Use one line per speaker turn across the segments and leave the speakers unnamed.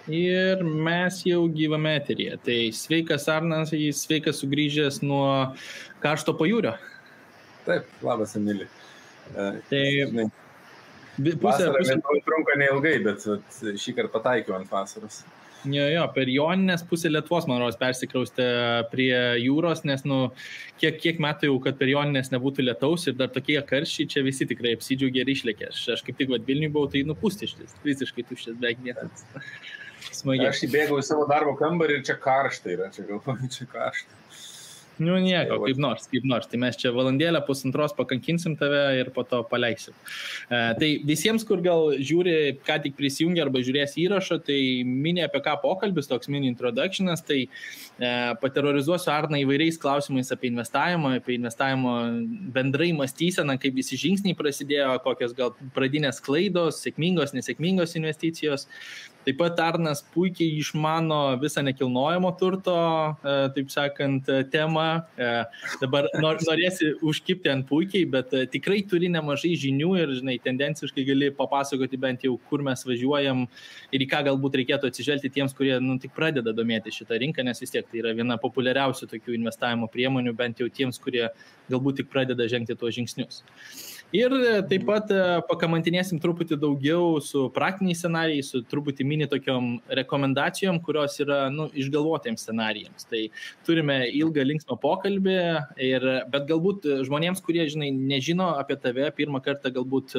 Ir mes jau gyvame eteryje. Tai sveikas Arnas, sveikas sugrįžęs nuo karšto pajūrio.
Taip, labas, Emili.
Tai
vasara Lietuvai trunka neilgai, bet šį kartą pataikiau ant vasaros.
Jo, per Joninės pusę Lietuvos, man rodos, persikraustė prie jūros, nes, kiek metų jau, kad per Joninės nebūtų lietaus ir dar tokie karščiai, čia visi tikrai apsidžiaugė ir išlėkė. Aš kaip tik Vilniui buvau, tai pustištis, visiškai tuštis, beveik niekas. Smagiai.
Aš įbėgau į savo darbo kambarį ir čia karšta yra, čia galvoju, čia karšta.
Nieko, kaip nors. Tai mes čia valandėlę pusantros pakankinsim tave ir po to paleisim. Tai visiems, kur gal žiūri, ką tik prisijungia arba žiūrės įrašą, tai mini apie ką pokalbis, toks mini introductionas, tai paterorizuosiu Arną įvairiais klausimais apie investavimo bendrai mąstyseną, kaip visi žingsniai prasidėjo, kokios gal pradinės klaidos, sėkmingos, nesėkmingos investicijos. Taip pat Arnas puikiai išmano visą nekilnojamo turto, taip sakant, temą. Dabar norėsi užkipti ant puikiai, bet tikrai turi nemažai žinių ir, tendenciškai gali papasakoti bent jau, kur mes važiuojam ir į ką galbūt reikėtų atsižvelgti tiems, kurie tik pradeda domėti šitą rinką, nes vis tiek tai yra viena populiariausių tokių investavimo priemonių, bent jau tiems, kurie galbūt tik pradeda žengti tuos žingsnius. Ir taip pat pakamantinėsim truputį daugiau su praktiniais scenarijais, su truputį mini tokiom rekomendacijom, kurios yra išgalvotiems scenarijams. Tai turime ilgą linksmą pokalbį, bet galbūt žmonėms, kurie nežino apie tave, pirmą kartą galbūt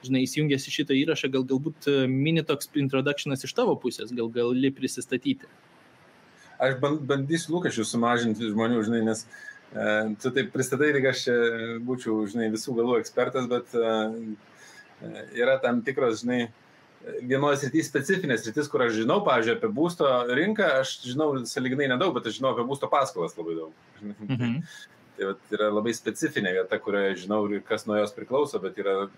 įsijungęs į šitą įrašą, galbūt mini toks introductionas iš tavo pusės, gali prisistatyti.
Aš bandysiu lūkesčius sumažinti žmonių, nes tu taip pristatai, lyg aš būčiau, visų galų ekspertas, bet yra tam tikros, vienoje srityje specifinės sritis, kur aš žinau, pavyzdžiui, apie būsto rinką, aš žinau sąlyginai nedaug, bet aš žinau apie būsto paskolas labai daug. Tai yra labai specifinė vieta, kurioje žinau ir kas nuo jos priklauso, bet yra,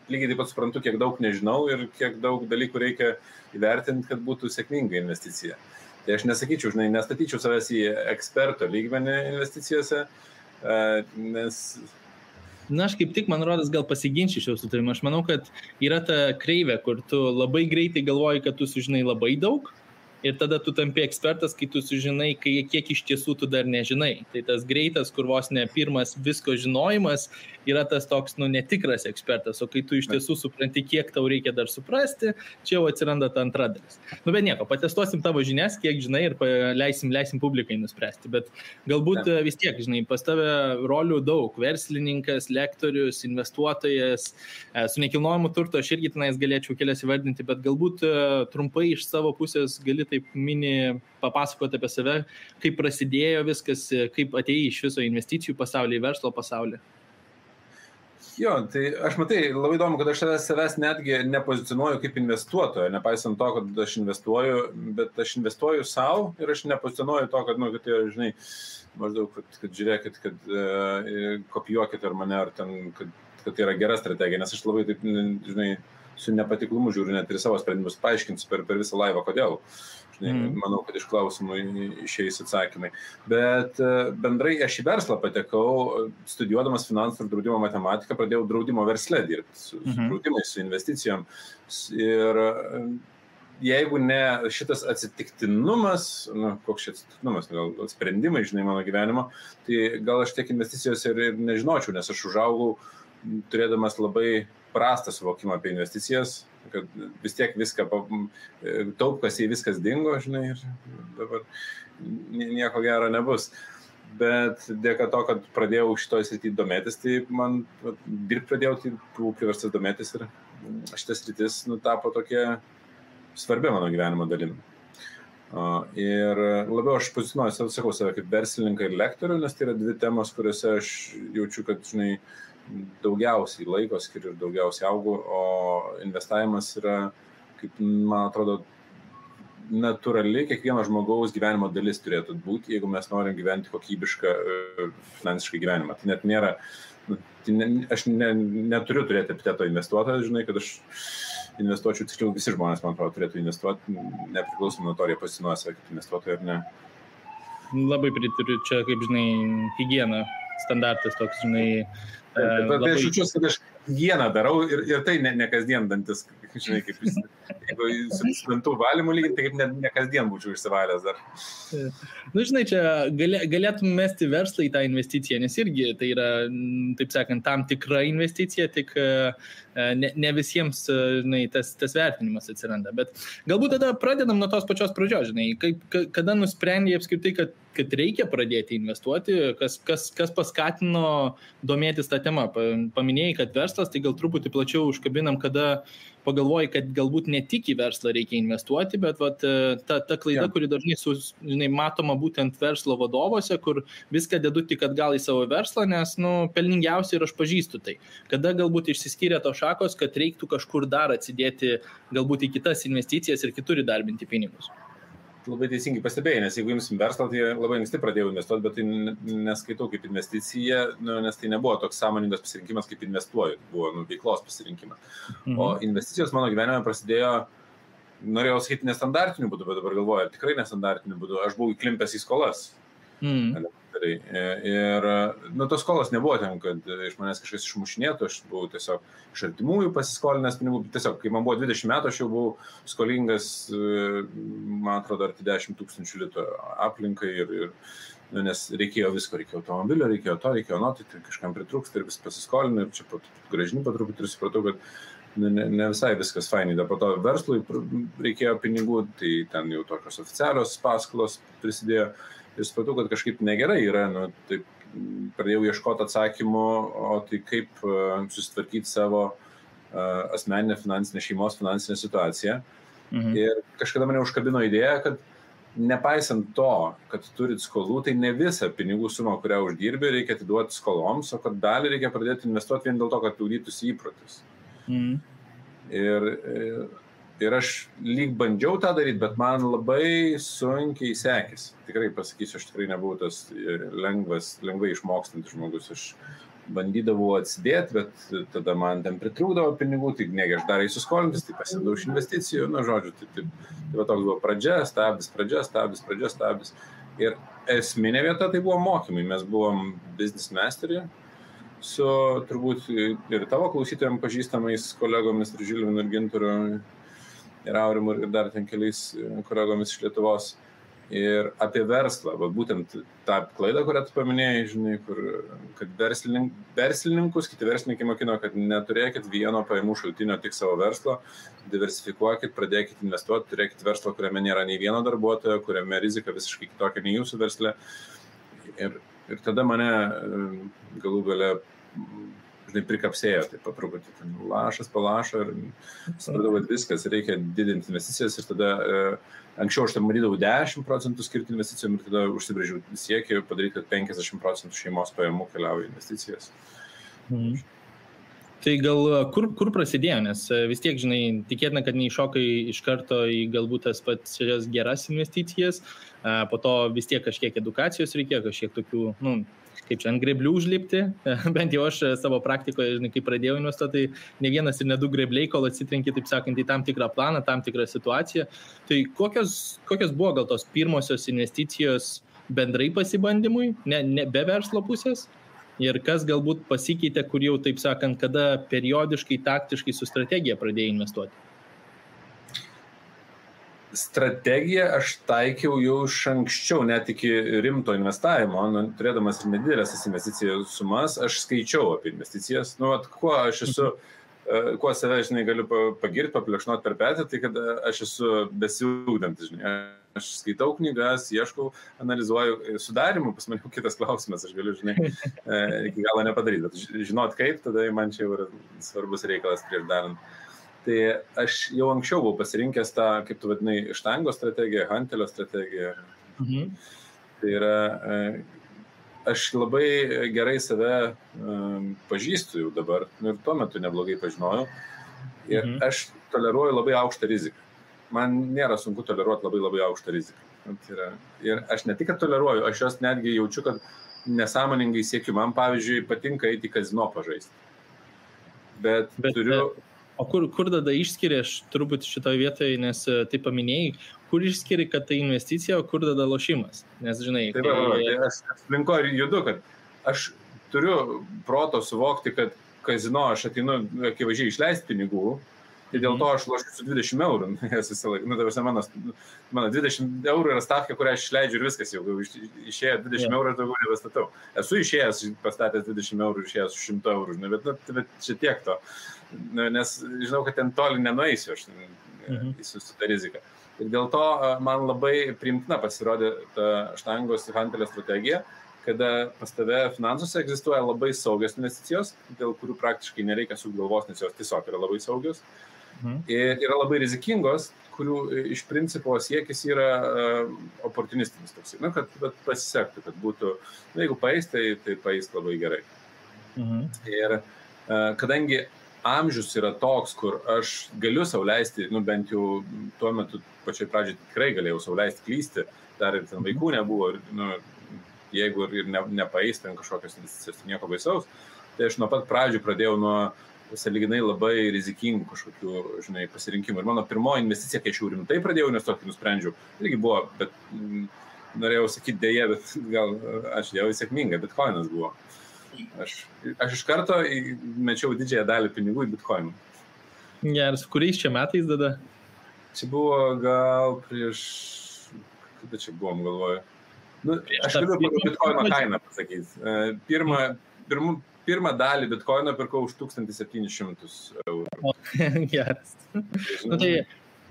lygiai taip pat suprantu, kiek daug nežinau ir kiek daug dalykų reikia įvertinti, kad būtų sėkminga investicija. Tai aš nesakyčiau, nestatyčiau savęs į eksperto lygmenį investicijose, nes...
Aš kaip tik, man rodas, gal pasiginčičiau su tavimi. Aš manau, kad yra ta kreivė, kur tu labai greitai galvoji, kad tu sužinai labai daug ir tada tu tampi ekspertas, kai tu sužinai, kiek iš tiesų tu dar nežinai. Tai tas greitas, kur vos ne pirmas visko žinojimas, yra tas toks, netikras ekspertas, o kai tu iš tiesų supranti, kiek tau reikia dar suprasti, čia jau atsiranda ta antra dalis. Bet nieko, patestuosim tavo žinias, kiek žinai ir leisim publikai nuspręsti, bet galbūt vis tiek, pas tave rolių daug, verslininkas, lektorius, investuotojas, su nekilnojimu turto aš irgi tenais galėčiau kelias įvardinti, bet galbūt trumpai iš savo pusės gali taip mini papasakoti apie save, kaip prasidėjo viskas, kaip atėjai iš viso investicijų pasaulį, verslo pasaulį.
Jo, tai aš labai įdomu, kad aš savęs netgi nepozicionuoju kaip investuotojo, nepaisant to, kad aš investuoju, bet aš investuoju savo ir aš nepozicionuoju to, kad, tai, maždaug, kad žiūrėkit, kad kopijuokit ar mane, ar ten, kad tai yra gera strategija, nes aš labai taip, su nepatiklumu žiūriu net ir savo sprendimus, paaiškinsiu per visą laivą, kodėl. Manau, kad iš klausimų išeis atsakymai. Bet bendrai aš į verslą patekau, studijuodamas finansų ir draudimo matematiką, pradėjau draudimo versle dirbti, su draudimais, su investicijom. Ir jeigu ne šitas atsitiktinumas, koks šis atsitiktinumas, gal sprendimai, mano gyvenimo, tai gal aš tiek investicijos ir nežinočiau, nes aš užaugau turėdamas labai prastą suvokimą apie investicijas, kad vis tiek viską taupkas į viskas dingo, ir dabar nieko gero nebus. Bet dėka to, kad pradėjau šitoj srity domėtis, tai man dirbti pradėjau, tai buvau priverstas domėtis ir šitas sritis tapo tokia svarbia mano gyvenimo dalim. Ir labiau aš pozicionuoju, sakau save kaip verslininką ir lektorių, nes tai yra dvi temos, kuriuose aš jaučiu, kad, daugiausiai laiko skiriu ir daugiausiai augu, o investavimas yra, kaip man atrodo, natūrali kiekvieno žmogaus gyvenimo dalis turėtų būti, jeigu mes norim gyventi kokybišką finansiškai gyvenimą. Tai net nėra, aš neturiu turėti epiteto investuotojas, kad aš investuočiau, tiksliau visi žmonės, man atrodo, turėtų investuoti, nepriklausomai nuo to, ar jie pasinuoja save kaip investuotojai ar ne.
Labai pritariu, čia kaip, higiena, standartas toks,
Bet aš jaučiuosi, kad aš higieną darau ir tai ne kasdien dantis, kaip Jeigu su dantų valymu lygiai, tai kaip ne kasdien būčiau išsivalęs dar.
Nu, žinai, čia galėtum mesti verslą į tą investiciją, nes irgi tai yra, taip sakant, tam tikra investicija, tik ne visiems, žinai, tas vertinimas atsiranda. Bet galbūt tada pradedam nuo tos pačios pradžios, žinai, kada nusprendė apskritai, kad reikia pradėti investuoti, kas paskatino domėtis tą temą. Paminėjai, kad verslas, tai gal truputį plačiau užkabinam, kada pagalvoji, kad galbūt ne tik į verslą reikia investuoti, bet ta klaida, kuri dažnai žinai, matoma būtent verslo vadovose, kur viską dedu tik atgal į savo verslą, nes pelningiausiai ir aš pažįstu tai. Kada galbūt išsiskyrė to šakos, kad reiktų kažkur dar atsidėti galbūt į kitas investicijas ir kitur įdarbinti pinigus.
Labai teisingai pastebėjai, nes jeigu imsim verslą, tai labai anksti pradėjau investuoti, bet tai neskaitau kaip investicija, nes tai nebuvo toks sąmoningas pasirinkimas, kaip investuoju, buvo veiklos pasirinkimas. O investicijos mano gyvenime prasidėjo, norėjau sakyti, nestandartiniu būdu, bet dabar galvoju, ar tikrai nestandartiniu būdu, aš buvau įklimpęs į skolas. Ir tos skolos nebuvo ten, kad iš manęs kažkas išmušinėtų, aš buvau tiesiog iš artimųjų pasiskolinęs pinigų, tiesiog kai man buvo 20 metų, aš jau buvau skolingas, man atrodo, arti 10 000 litų aplinkai nes reikėjo visko, reikėjo automobilio, reikėjo to, tai kažkam pritrūksta ir vis pasiskolinę ir čia gražini patruputį ir supratau, kad ne visai viskas fainai, dar po to verslui reikėjo pinigų, tai ten jau tokios oficialios paskolos prisidėjo. Ir supratau, kad kažkaip negerai yra, taip pradėjau ieškoti atsakymų, o tai kaip susitvarkyti savo asmeninę finansinę, šeimos finansinę situaciją. Ir kažkada mane užkabino idėja, kad nepaisant to, kad turit skolų, tai ne visą pinigų sumą, kurią uždirbi, reikia atiduoti skoloms, o kad dalį reikia pradėti investuoti vien dėl to, kad ūdytųsi įprotis. Ir aš lyg bandžiau tą daryti, bet man labai sunkiai sekėsi. Tikrai pasakysiu, aš tikrai nebuvau tas lengvai išmokstantis žmogus. Aš bandydavau atsidėti, bet tada man ten pritrūkdavo pinigų, tai negi aš dar įsiskolintis, tai pasidau iš investicijų, žodžiu, tai va toks buvo pradžia, stabdis. Ir esminė vieta tai buvo mokymai. Mes buvom business mastery su turbūt ir tavo klausytojams pažįstamais kolegomis ir Žilvinu ir Ginturu ir Aurimu ir dar ten keliais kolegomis iš Lietuvos. Ir apie verslą, būtent tą klaidą, kurią tu paminėjai, žinai, kad verslininkus, kiti verslininkai mokino, kad neturėkit vieno pajamų šaltinio tik savo verslo, diversifikuokit, pradėkit investuoti, turėkit verslą, kuriame nėra nei vieno darbuotojo, kuriame rizika visiškai kitokia nei jūsų versle. Ir tada mane galų gale žinai, prikapsėjo, tai patruputį lašas palašo ir supratau, kad viskas, reikia didinti investicijas ir tada anksčiau aš tam matydavau 10% skirti investicijom ir tada užsibrėžiau siekį padaryti, kad 50% šeimos pajamų keliauja į investicijas.
Tai gal kur prasidėjo, nes vis tiek, žinai, tikėtina, kad neiššokai iš karto į galbūt tas pačias geras investicijas, po to vis tiek kažkiek edukacijos reikėjo, kažkiek tokių, kaip čia ant greblių užlipti, bent jau aš savo praktikoje, žinai, kai pradėjau investuoti, tai ne vienas ir ne du grebliai, kol atsitrenki, taip sakant, į tam tikrą planą, tam tikrą situaciją. Tai kokios buvo gal tos pirmosios investicijos bendrai pasibandymui, ne be verslo pusės? Ir kas galbūt pasikeitė, kur jau, taip sakant, kada periodiškai, taktiškai su strategija pradėjai investuoti?
Strategiją aš taikiau jau iš anksčiau, net iki rimto investavimo, turėdamas ir nedidelės investicijų sumas, aš skaičiau apie investicijas. Kuo aš esu, kuo save, žinai, galiu pagirti, paplekšnoti per petį, tai kad aš esu besiugdantis, žinai. Aš skaitau knygas, ieškau, analizuoju sudarimų, pas mane kitas klausimas, aš galiu, žinai, iki galo nepadaryti, bet žinot kaip, tada man čia jau yra svarbus reikalas prieš darant. Tai aš jau anksčiau buvau pasirinkęs tą, kaip tu vadinai, štango strategiją, hantelio strategiją. Tai yra, aš labai gerai save pažįstu jau dabar, ir tuo metu neblogai pažinojau. Ir aš toleruoju labai aukštą riziką. Man nėra sunku toleruoti labai labai aukštą riziką. Ir aš ne tik, kad toleruoju, aš jos netgi jaučiu, kad nesąmoningai siekiu. Man, pavyzdžiui, patinka eiti į kazino pažaisti. Bet turiu...
O kur tada išskiri, aš turbūt šitoje vietoje, nes tai paminėjai, kur išskiri, kad tai investicija, o kur tada lošimas? Nes, žinai...
Tai aš aplinko ir judu, kad aš turiu proto suvokti, kad kazino aš ateinu akivaizdžiai išleisti pinigų, Tai dėl to aš lošiu su 20 eurų, jas visą laiką. Mano 20 eurų yra stavka, kurią aš išleidžiu ir viskas jau. Išėjo 20 eurų ir daugiau nebestatau. Esu išėjęs, pastatęs 20 eurų ir išėjęs su 100 eurų, bet čia tiek to. Nes žinau, kad ten toli nenueisiu aš su tą riziką. Ir dėl to man labai priimtina pasirodė ta štangos Hantelio strategija, kada pas tave finansuose egzistuoja labai saugios investicijos, dėl kurių praktiškai nereikia sukti galvos, nes jos tiesiog yra labai saugios. Ir yra labai rizikingos, kurių iš principo siekis yra oportunistinis toks. Kad pasisektų, kad būtų, jeigu paeis, tai paeis labai gerai. Ir kadangi amžius yra toks, kur aš galiu sau leisti, bent jau tuo metu pačioj pradžiai tikrai galėjau sau leisti klysti, dar ir ten vaikų nebuvo, jeigu ir nepaeis ten kažkokios investicijos, nieko baisaus, tai aš nuo pat pradžių pradėjau nuo sąlyginai labai rizikingų kažkokių, pasirinkimų. Ir mano pirmoji investicija, kai aš jau rimtai pradėjau investuoti, nusprendžiau, irgi buvo, bet norėjau sakyti dėje, bet gal aš jau sėkminga, bitcoinas buvo. Aš iš karto mečiau didžiąją dalį pinigų į bitcoinų.
Geras, kuriais čia metais tada?
Čia buvo gal prieš, kada čia buvom, galvoju. Aš galiu pagal bitcoino kainą pasakyti. Pirmą dalį bitcoino pirkau už 1700 eurų.
Geras. Tai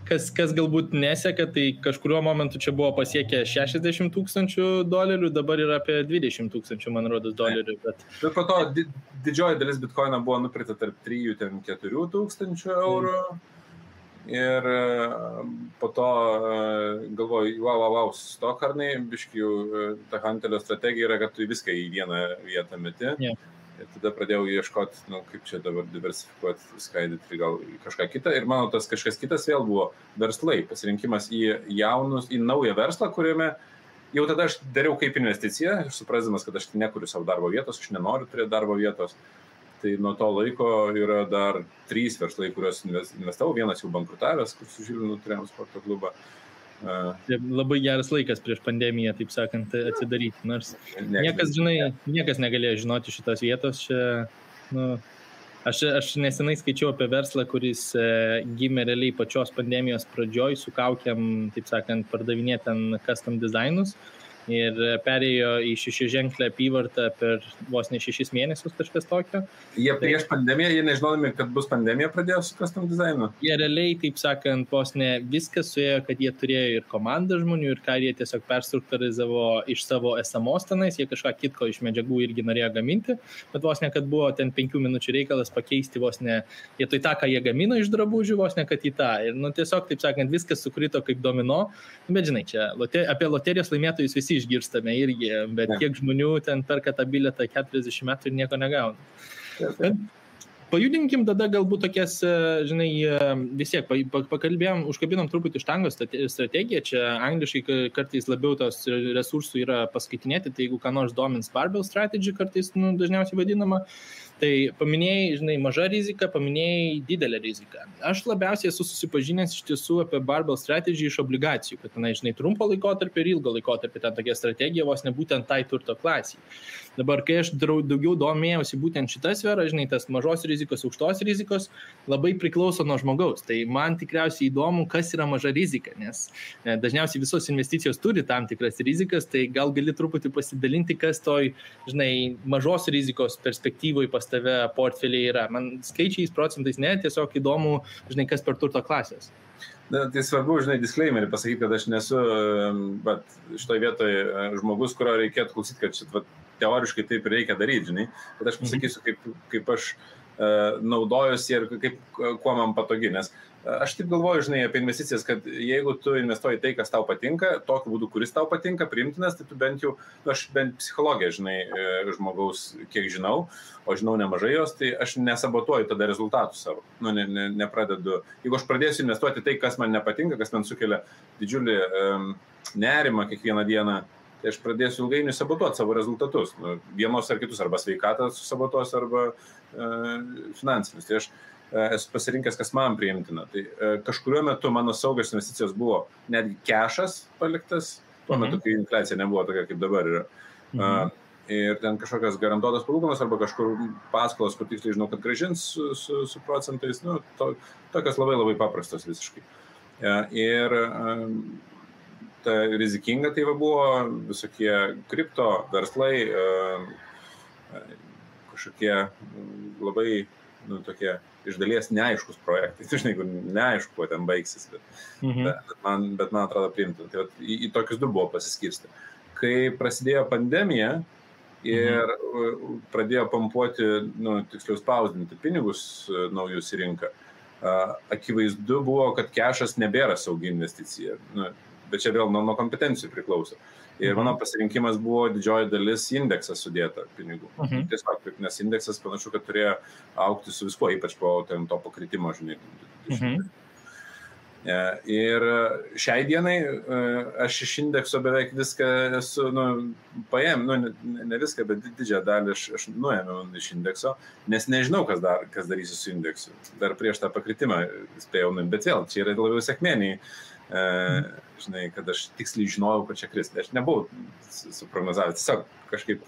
kas galbūt neseka, tai kažkuriuo momentu čia buvo pasiekę $60,000, dabar yra apie $20,000, man rodos, dolerių. Bet
po to didžioji dalis bitcoino buvo nupirkta tarp 3,000–4 tūkstančių eurų. Ir po to galvoju, wow, stokarnai, biškių, ta Hantelio strategija yra, kad tu viską į vieną vietą meti. Ir tada pradėjau ieškoti, kaip čia dabar diversifikuoti, skaidyti gal kažką kitą. Ir mano tas kažkas kitas vėl buvo verslai, pasirinkimas į naują verslą, kuriame jau tada aš dariau kaip investiciją, suprasdamas, kad aš nekuriu savo darbo vietos, aš nenoriu turėti darbo vietos. Tai nuo to laiko yra dar 3 verslai, kuriuos investavau, vienas jau bankrutavęs, kur su Žilvinu turėjom sporto klubą.
Labai geras laikas prieš pandemiją, taip sakant, atsidaryti, nors niekas negalėjo žinoti šitos vietos. Aš nesenai skaičiau apie verslą, kuris gimė realiai pačios pandemijos pradžioj, su kaukiam, taip sakant, pardavinėti ten custom designus. Ir perėjo į 6-ženklę apyvartą per vos ne 6 mėnesius kažkas tokio.
Jie prieš pandemiją, jie nežinodami, kad bus pandemija, pradėjo su custom designu?
Jie realiai, taip sakant, vos ne viskas suėjo, kad jie turėjo ir komandą žmonių, ir ką jie tiesiog perstruktūrizavo iš savo esamos tenais, jie kažką kitko iš medžiagų irgi norėjo gaminti, bet vos ne, kad buvo ten 5 minučių reikalas pakeisti vos ne, vietoj tą, ką jie gamino iš drabužių, vos ne, kad į tą. Ir tiesiog, taip sakant, viskas sukrito kaip domino, bet žinai, čia apie loterijos laimėtojus visi išgirstame irgi, bet kiek žmonių ten perka tą bilietą 40 metų ir nieko negauna. Pajudinkim tada galbūt tokias, žinai, vis tiek pakalbėjom, užkabinom truputį štangos strategiją, čia angliškai kartais labiau tos resursų yra paskaitinėti, tai jeigu ką nors domins barbell strategy kartais dažniausiai vadinama, tai paminėjai, žinai, maža rizika, paminėjai didelę riziką. Aš labiausiai esu susipažinęs iš tiesų apie barbell strategy iš obligacijų, kad tenai, žinai, trumpo laikotarpio ir ilgo laikotarpio ten tokia strategija vos ne būtent tai turto klasiai. Dabar, kai aš daugiau domėjausi būtent šitą sferą, žinai, tas mažos rizikos, aukštos rizikos labai priklauso nuo žmogaus. Tai man tikriausiai įdomu, kas yra maža rizika, nes dažniausiai visos investicijos turi tam tikras rizikas, tai gal gali truputį pasidalinti, kas toj, žinai, mažos rizikos perspektyvoje pas tave portfeliai yra. Man skaičiais, procentais ne, tiesiog įdomu, žinai, kas per turto klasės.
Tai svarbu, žinai, disclaimerį pasakyti, kad aš nesu, bet šitoje vietoje žmogus, kurio reikėtų klausyti, kad šit, teoriškai taip reikia daryti, žinai, bet aš pasakysiu, kaip aš naudojusi ir kuo man patogi, nes aš taip galvoju, žinai, apie investicijas, kad jeigu tu investuoji tai, kas tau patinka, tokiu būdu, kuris tau patinka, priimtinas, tai tu bent jau, aš bent psichologiją, žinai, žmogaus, kiek žinau, o žinau nemažai jos, tai aš nesabotuoju tada rezultatų savo, nepradedu. Jeigu aš pradėsiu investuoti tai, kas man nepatinka, kas man sukelia didžiulį nerimą kiekvieną dieną, tai aš pradėsiu ilgainiui sabotuoti savo rezultatus, vienos ar kitus, arba sveikatą sabotuos, arba finansinius. Tai aš esu pasirinkęs, kas man priimtina. Tai kažkuriuo metu mano saugios investicijos buvo netgi kešas paliktas, tuo metu, kai infliacija nebuvo tokia, kaip dabar yra. ir ten kažkokias garantuotas palūkanos arba kažkur paskolas, kur tiksliai žinau, kad gražins su procentais, nu, tokios labai labai paprastos visiškai. Ir ta rizikinga tai buvo visokie kripto verslai, kažkokie labai, nu, tokie iš dalies neaiškus projektai. Tu žinai, neaišku, kuo ten baigsis, bet man atrodo priimtina. Tai į tokius du buvo pasiskirsti. Kai prasidėjo pandemija ir pradėjo pampuoti, nu, tiksliau spausdinti pinigus naujus į rinką, akivaizdu buvo, kad kešas nebėra saugi investicija. Nu, bet čia vėl nuo kompetencijų priklauso. Ir mano pasirinkimas buvo didžioji dalis indeksas sudėta pinigų. Tiesiog, nes indeksas panašu, kad turėjo augti su viskuo, ypač po to pakritimo, žinai. Ir šiai dienai aš iš indekso beveik viską esu, ne viską, bet didžiąją dalį aš nuėmiau iš indekso, nes nežinau, kas darysiu su indeksu. Dar prieš tą pakritimą spėjau, bet vėl, čia yra labiau sėkmeniai. Žinai, kad aš tiksliai žinojau, kad čia kris. Aš nebuvau suprognozavęs, tiesiog kažkaip...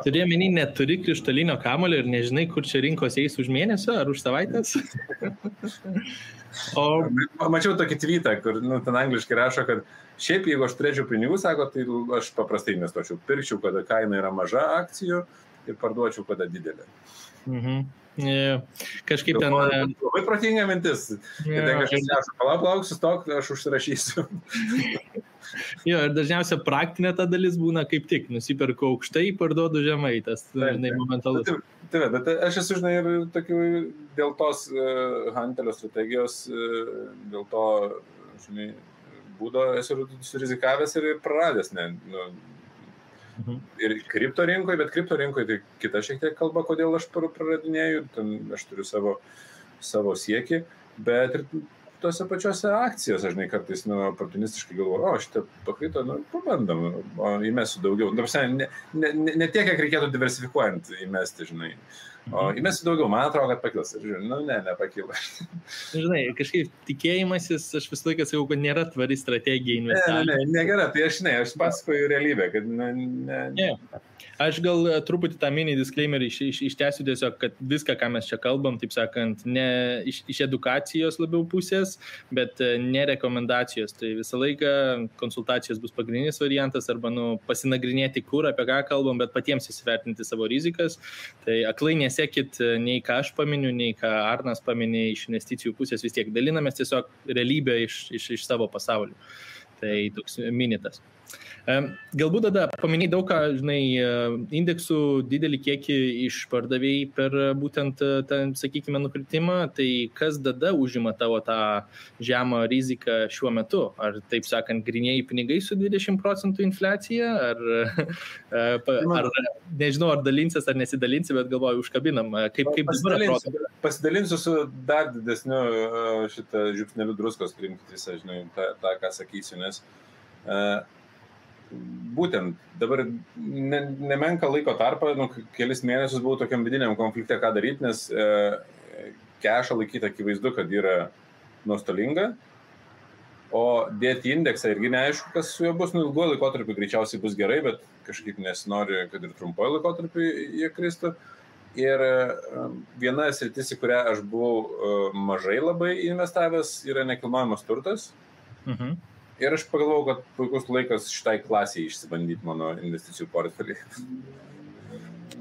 Turėjau menį, neturi krištolinio kamulio ir nežinai, kur čia rinkos eis už mėnesio ar už savaitės?
Mačiau tokį tweetą, kur ten angliškai rašo, kad šiaip jeigu aš turėčiau pinigų, sako, tai aš paprastai investuočiau. Pirkčiau, kada kaina yra maža akcijų ir parduočiau, kada didelė.
Kažkaip ten...
Labai protinga mintis. Ir ten kažkas neša, palauk, sustok, aš užsirašysiu.
Jo, ir dažniausia praktinė ta dalis būna kaip tik. Nusiperku aukštai, parduodu žemai. Tas, žinai, momentalus.
Taip, bet aš esu, žinai, ir tokių dėl tos Hantelio strategijos, dėl to, žinai, būdo esu surizikavęs ir praradęs, ir kripto rinkoje, bet kripto rinkoje tai kita šiek tiek kalba, kodėl aš praradinėju, ten aš turiu savo siekį, bet ir tose pačiose akcijose, žinai, kartais oportunistiškai galvoju, šitą pakrito, pabandom, įmesiu daugiau. Ne tiek, kiek reikėtų diversifikuojant įmesti, žinai. O įmesiu daugiau, man atrodo, kad pakils. Ir žinai, nepakilo.
Žinai, kažkaip tikėjimasis, aš visą laiką sakau, kad nėra tvari strategija investavimo.
Negera, tai aš pasakoju realybę, kad
Aš gal truputį tą mini disclaimerį ištęsiu tiesiog, kad viską, ką mes čia kalbam, taip sakant, ne iš edukacijos labiau pusės, bet ne rekomendacijos. Tai visą laiką konsultacijos bus pagrindinis variantas arba pasinagrinėti, kur, apie ką kalbam, bet patiems įsivertinti savo rizikas. Tai aklai nesekit nei ką aš paminiu, nei ką Arnas paminė iš investicijų pusės, vis tiek dalinamės tiesiog realybę iš savo pasaulio. Tai toks minitas. Galbūt tada paminėjai daug ką, žinai, indeksų didelį kiekį išpardavėjai per būtent tą, sakykime, nukritimą, tai kas tada užima tavo tą žemą riziką šiuo metu? Ar, taip sakant, grynieji pinigai su 20% infliacija? Ar nežinau, ar dalinsis ar nesidalinsi, bet galvoju, užkabinam. Kaip dabar atrodo?
Pasidalinsiu su dar didesniu šitą žiupsneliu druskos, priimkit visą, žinai, tą ką sakysiu, nes būtent dabar nemenka laiko tarpą, kelis mėnesius buvau tokiam vidiniam konflikte, ką daryti, nes kešą laikyti akivaizdu, kad yra nuostolinga, o dėti indeksą irgi neaišku, kas su juo bus, ilguoju laikotarpiu greičiausiai bus gerai, bet kažkaip nesinori, kad ir trumpoju laikotarpiu jie kristų. Ir viena sritis, į kurią aš buvau mažai labai investavęs, yra nekilnojamas turtas. Ir aš pagalvojau, kad puikus laikas šitai klasiai išsibandyti mano investicijų portfelį.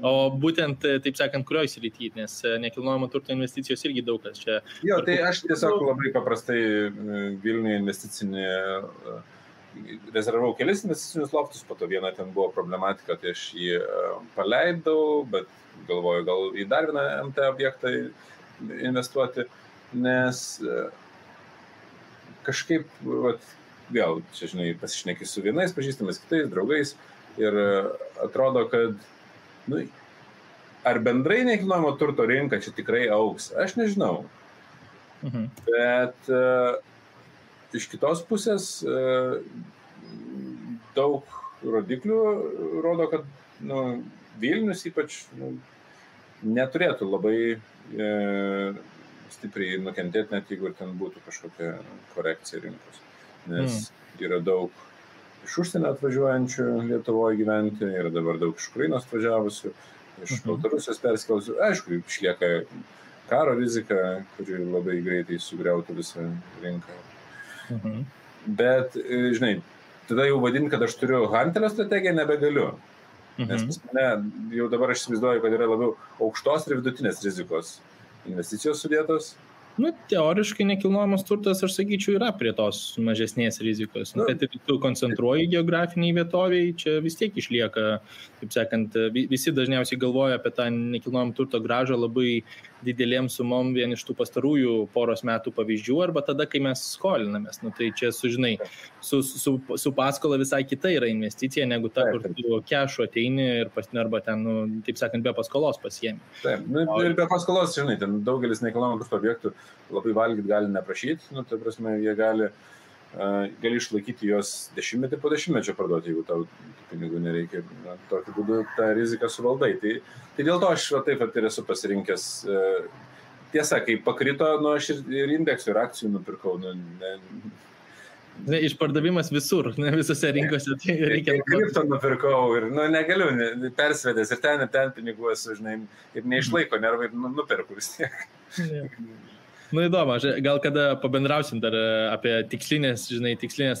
O būtent, taip sakant, kurioj srity, nes nekilnojamo turto investicijos irgi daug kas čia.
Jo, tai aš tiesiog labai paprastai Vilniuje investicinį rezervavau kelis investicinius loftus, po to viena ten buvo problematika, tai aš jį paleidau, bet galvoju, gal į dar vieną MT objektą investuoti, nes kažkaip, vėl, čia, žinai, pasišneki su vienais pažįstamais, kitais draugais ir atrodo, kad, ar bendrai nekilnojamo turto rinka čia tikrai augs, aš nežinau. Bet iš kitos pusės daug rodiklių rodo, kad Vilnius ypač neturėtų labai stipriai nukentėti, net jeigu ten būtų kažkokia korekcija rinkos. Nes yra daug iš užsienio atvažiuojančių Lietuvoje gyventi, yra dabar daug iš Ukrainos atvažiavusių, iš Baltarusijos perskėlusių. Aišku, išlieka karo rizika, kuri labai greitai sugriautų visą rinką. Bet, žinai, tada jau vadinti, kad aš turiu Hunterio strategiją, nebegaliu. Nes pas mane jau dabar aš įsivaizduoju, kad yra labiau aukštos ir vidutinės rizikos investicijos sudėtos.
Nu, teoriškai nekilnojamas turtas, aš sakyčiau, yra prie tos mažesnės rizikos. Kad tu koncentruoji geografiniai vietoviai, čia vis tiek išlieka, kaip sakant, visi dažniausiai galvoja apie tą nekilnojamą turto grąžą labai didelėm sumom vien iš tų pastarųjų poros metų pavyzdžių, arba tada, kai mes skolinamės. Nu, tai čia, žinai, su paskola visai kita yra investicija, negu ta, kur tu kešu ateini ir arba ten, nu, taip sakant, be paskolos pasiemi.
Taip, nu, ir be paskolos, žinai, ten daugelis nekilnojamų turto objektų labai valgyti gali neprašyti, nu, tai prasme, jie gali išlaikyti juos dešimtmetį po dešimtmečio parduoti, jeigu tau pinigų nereikia, tokiu būdu tą riziką suvaldai. Tai dėl to aš taip ir esu pasirinkęs. Tiesa, kai pakrito, nu, aš ir indeksų, ir akcijų nupirkau.
Išpardavimas visur, ne visose rinkose. Tai reikia.
Kripto nupirkau ir negaliu, persvedęs ir ten pinigų esu, žinai, ir neišlaiko, nervai nupirku vis tiek.
Nu įdomu, gal kada pabendrausim dar apie tikslinės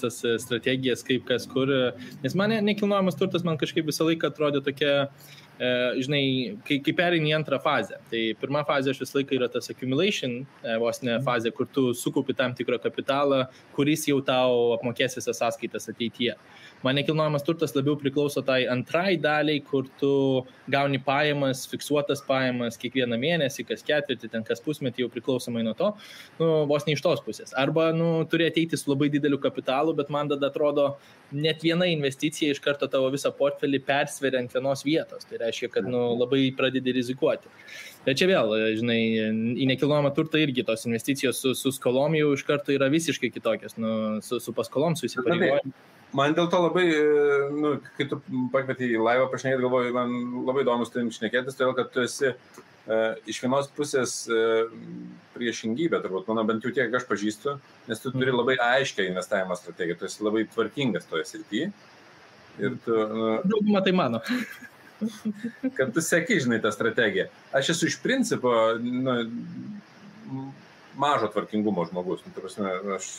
tas strategijas, kaip kas kur, nes man nekilnojamas turtas man kažkaip visą laiką atrodė tokia, žinai, kai pereini į antrą fazę. Tai pirma fazė aš visą laiką yra tas accumulation, vos ne fazė, kur tu sukaupi tam tikrą kapitalą, kuris jau tau apmokės visas sąskaitas ateityje. Man nekilnojamas turtas labiau priklauso tai antrai daliai, kur tu gauni pajamas, fiksuotas pajamas kiekvieną mėnesį, kas ketvirtį, ten kas pusmetį jau priklausomai nuo to, nu, vos ne iš tos pusės. Arba, nu, turi ateiti su labai dideliu kapitalu, bet man tada atrodo, net viena investicija iš karto tavo visą portfelį persveria ant vienos vietos. Tai reiškia, kad nu, labai pradedi rizikuoti. Bet čia vėl, žinai, į nekilnojamą turtą irgi tos investicijos su skolom jau iš karto yra visiškai kitokios, nu, su paskolom, su įsipareigojimu.
Man dėl to labai, nu, kai tu pakvietei į laivą pašnekėti, galvoju, man labai įdomus tai šnekėtis, todėl kad tu esi iš vienos pusės priešingybė, turbūt, mano bent jau tiek aš pažįstu, nes tu turi labai aiškę investavimo strategiją, tu esi labai tvarkingas toje srityje. Ir tu...
Daugumą tai mano.
Kad tu seki, žinai, tą strategiją. Aš esu iš principo, nu, mažo tvarkingumo žmogus, nu, prasme, aš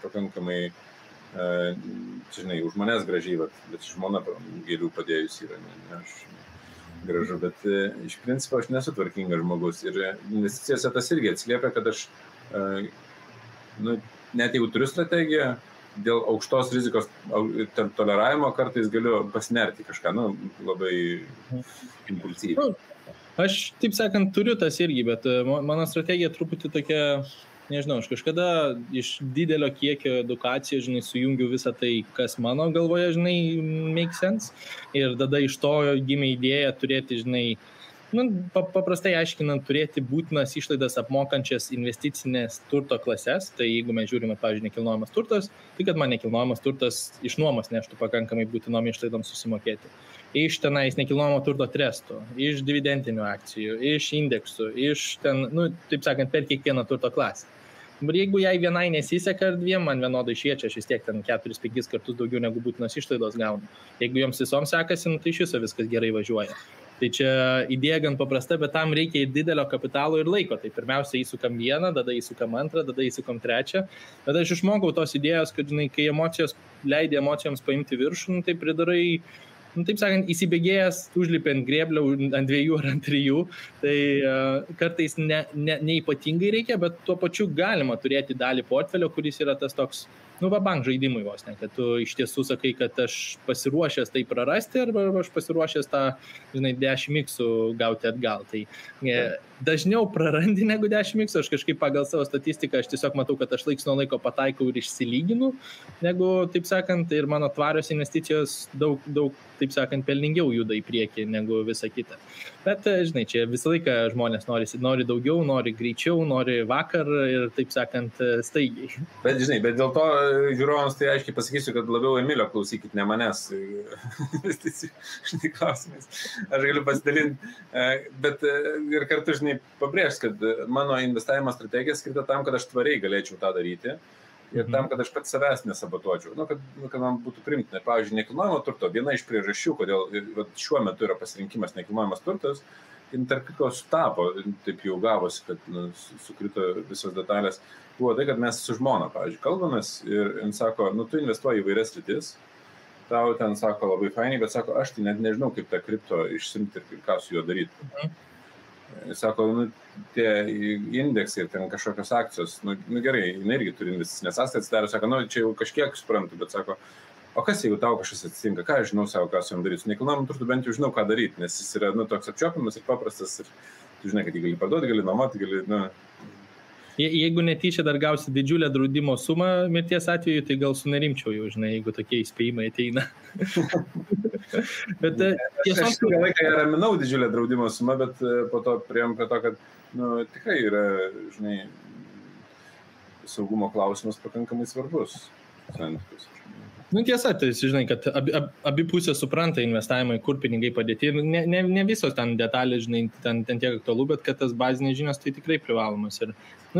pakankamai, žinai, už manęs gražiai, bet žmona gėlių padėjus yra, ne aš gražu, bet iš principo aš nesu tvarkingas žmogus ir investicijose tas irgi atsiliepia, kad aš, nu, net jeigu turiu strategiją, dėl aukštos rizikos toleravimo kartais galiu pasinerti kažką, nu, labai impulsyviai.
Aš, taip sakant, turiu tas irgi, bet mano strategija truputį tokia, nežinau, aš kažkada iš didelio kiekio edukacijos, žinai, sujungiu visą tai, kas mano galvoje, žinai, make sense. Ir tada iš to gimė idėja turėti, žinai, nu, paprastai aiškinant, turėti būtinas išlaidas apmokančias investicinės turto klases. Tai jeigu mes žiūrime, pavyzdžiui, nekilnojamas turtas, tai kad man nekilnojamas turtas iš nuomos neštų pakankamai būtinom išlaidom susimokėti. Iš tenais nekilnojamo turto trestų, iš dividendinių akcijų, iš indeksų, iš ten, nu, taip sakant, per kiekvieną turto klasę. Bet jeigu jai vienai nesiseka ar dviem, man vienodai šviečia, aš vis tiek ten 4-5 kartus daugiau negu būtinos išlaidos gaunu. Jeigu joms visoms sekasi, tai iš viso viskas gerai važiuoja. Tai čia idėja gan paprasta, bet tam reikia ir didelio kapitalo ir laiko. Tai pirmiausia įsukam vieną, tada įsukam antrą, tada įsukam trečią. Tada aš išmokau tos idėjos, kad, žinai, kai emocijos leidė emocijoms paimti viršų, tai pridarai, nu, taip sakant, įsibėgėjęs, užlipi ant grėblio, ant 2 ar ant 3, tai kartais neypatingai reikia, bet tuo pačiu galima turėti dalį portfelio, kuris yra tas toks, nu, bank žaidimui vos, ne, kad tu iš tiesų sakai, kad aš pasiruošęs tai prarasti, arba aš pasiruošęs tą, žinai, 10x gauti atgal. Tai dažniau prarandi negu 10x, aš kažkaip pagal savo statistiką, aš tiesiog matau, kad aš laiks nuo laiko pataikau ir išsilyginu, negu, taip sakant, ir mano tvarios investicijos daug, taip sakant, pelningiau juda į priekį negu visa kita. Bet, žinai, čia visą laiką žmonės nori daugiau, nori greičiau, nori vakar ir, taip sakant, staigiai.
Bet, žinai, bet dėl to žiūrovams tai aiškiai pasakysiu, kad labiau Emilio klausykit, ne manęs štai klausimais. Aš galiu pasidalinti, bet ir kartu, žinai, pabrėžti, kad mano investavimo strategija skirta tam, kad aš tvariai galėčiau tą daryti. ir tam, kad aš pats savęs nesabotuočiau, kad man būtų primtina. Pavyzdžiui, nekilnojamo turto, viena iš priežasčių, kodėl šiuo metu yra pasirinkimas nekilnojamas turtas, ir tarp kitko sutapo, taip jau gavosi, kad sukrito visos detalės, buvo tai, kad mes su žmona, pavyzdžiui, kalbamės ir jis sako, tu investuoji į vairias sritis, tau ten sako labai fainiai, bet sako, aš tai net nežinau, kaip tą kripto išsimti ir ką su juo daryti. Jis sako, tie indeksai ir ten kažkokios akcijos, gerai, jinai irgi turi investicinės sąskaitas, atsidarė, sako, čia jau kažkiek suprantu, bet sako, o kas jeigu tau kažkas atsitinka, ką aš žinau savo, ką su jam daryti, su nekilnojamu turtu bent jau žinau, ką daryti, nes jis yra, toks apčiuopiamas ir paprastas ir tu žinai, kad jį gali parduoti, gali nuomoti, gali,
Jeigu netyčia dar gausi didžiulę draudimo sumą mirties atveju, tai gal sunerimčiau jau, žinai, jeigu tokie įspėjimai ateina. Bet
tiesiog... Aš ilgą laiką raminau didžiulę draudimo sumą, bet po to priėjom prie to, kad tikrai yra, žinai, saugumo klausimas pakankamai svarbus santykius.
Tiesa, tai žinai, kad abi pusės supranta investavimą, kur pinigai padėti. Ne visos ten detalės, žinai, ten tiek aktualu, bet kad tas bazinės žinios tai tikrai privalomas. Ir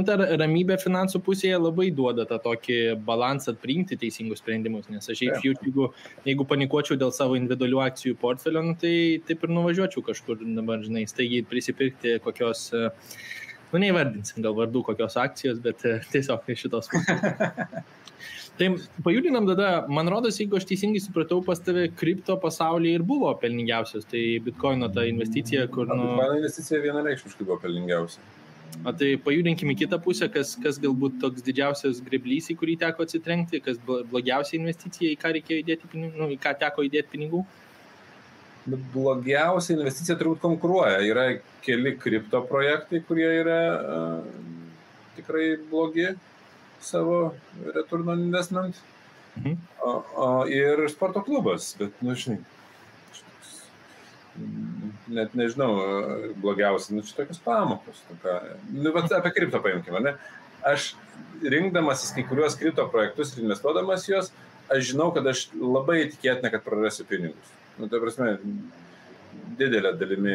ta ramybė finansų pusėje labai duoda tą tokį balansą priimti teisingus sprendimus, nes aš jeigu panikuočiau dėl savo individualių akcijų portfelio, tai taip ir nuvažiuočiau kažkur dabar, žinai, staigiai prisipirkti kokios, neįvardinsim gal vardų kokios akcijos, bet tiesiog šitos pusės. Tai pajudinam tada, man rodos, jeigu aš teisingai supratau, pas tave kripto pasaulyje ir buvo pelningiausios, tai Bitcoino ta investicija, kur...
Bitcoino investicija vienareikšmiškai buvo pelningiausia.
Tai pajudinkim į kitą pusę, kas galbūt toks didžiausias greblys, į kurį teko atsitrenkti, kas blogiausia investicija, į ką reikėjo įdėti pinigų, į ką teko įdėti pinigų?
Blogiausia investicija turbūt konkuruoja. Yra keli kripto projektai, kurie yra tikrai blogi savo return on investment. Ir sporto klubas, bet, žinai, net nežinau, blogiausia, čia tokios pamokos. Apie kripto paimkime, ne? Aš rinkdamasis kai kuriuos kripto projektus ir investuodamas juos, aš žinau, kad aš labai tikėtina, kad prarasiu pinigus. Tai prasme, didelė dalimi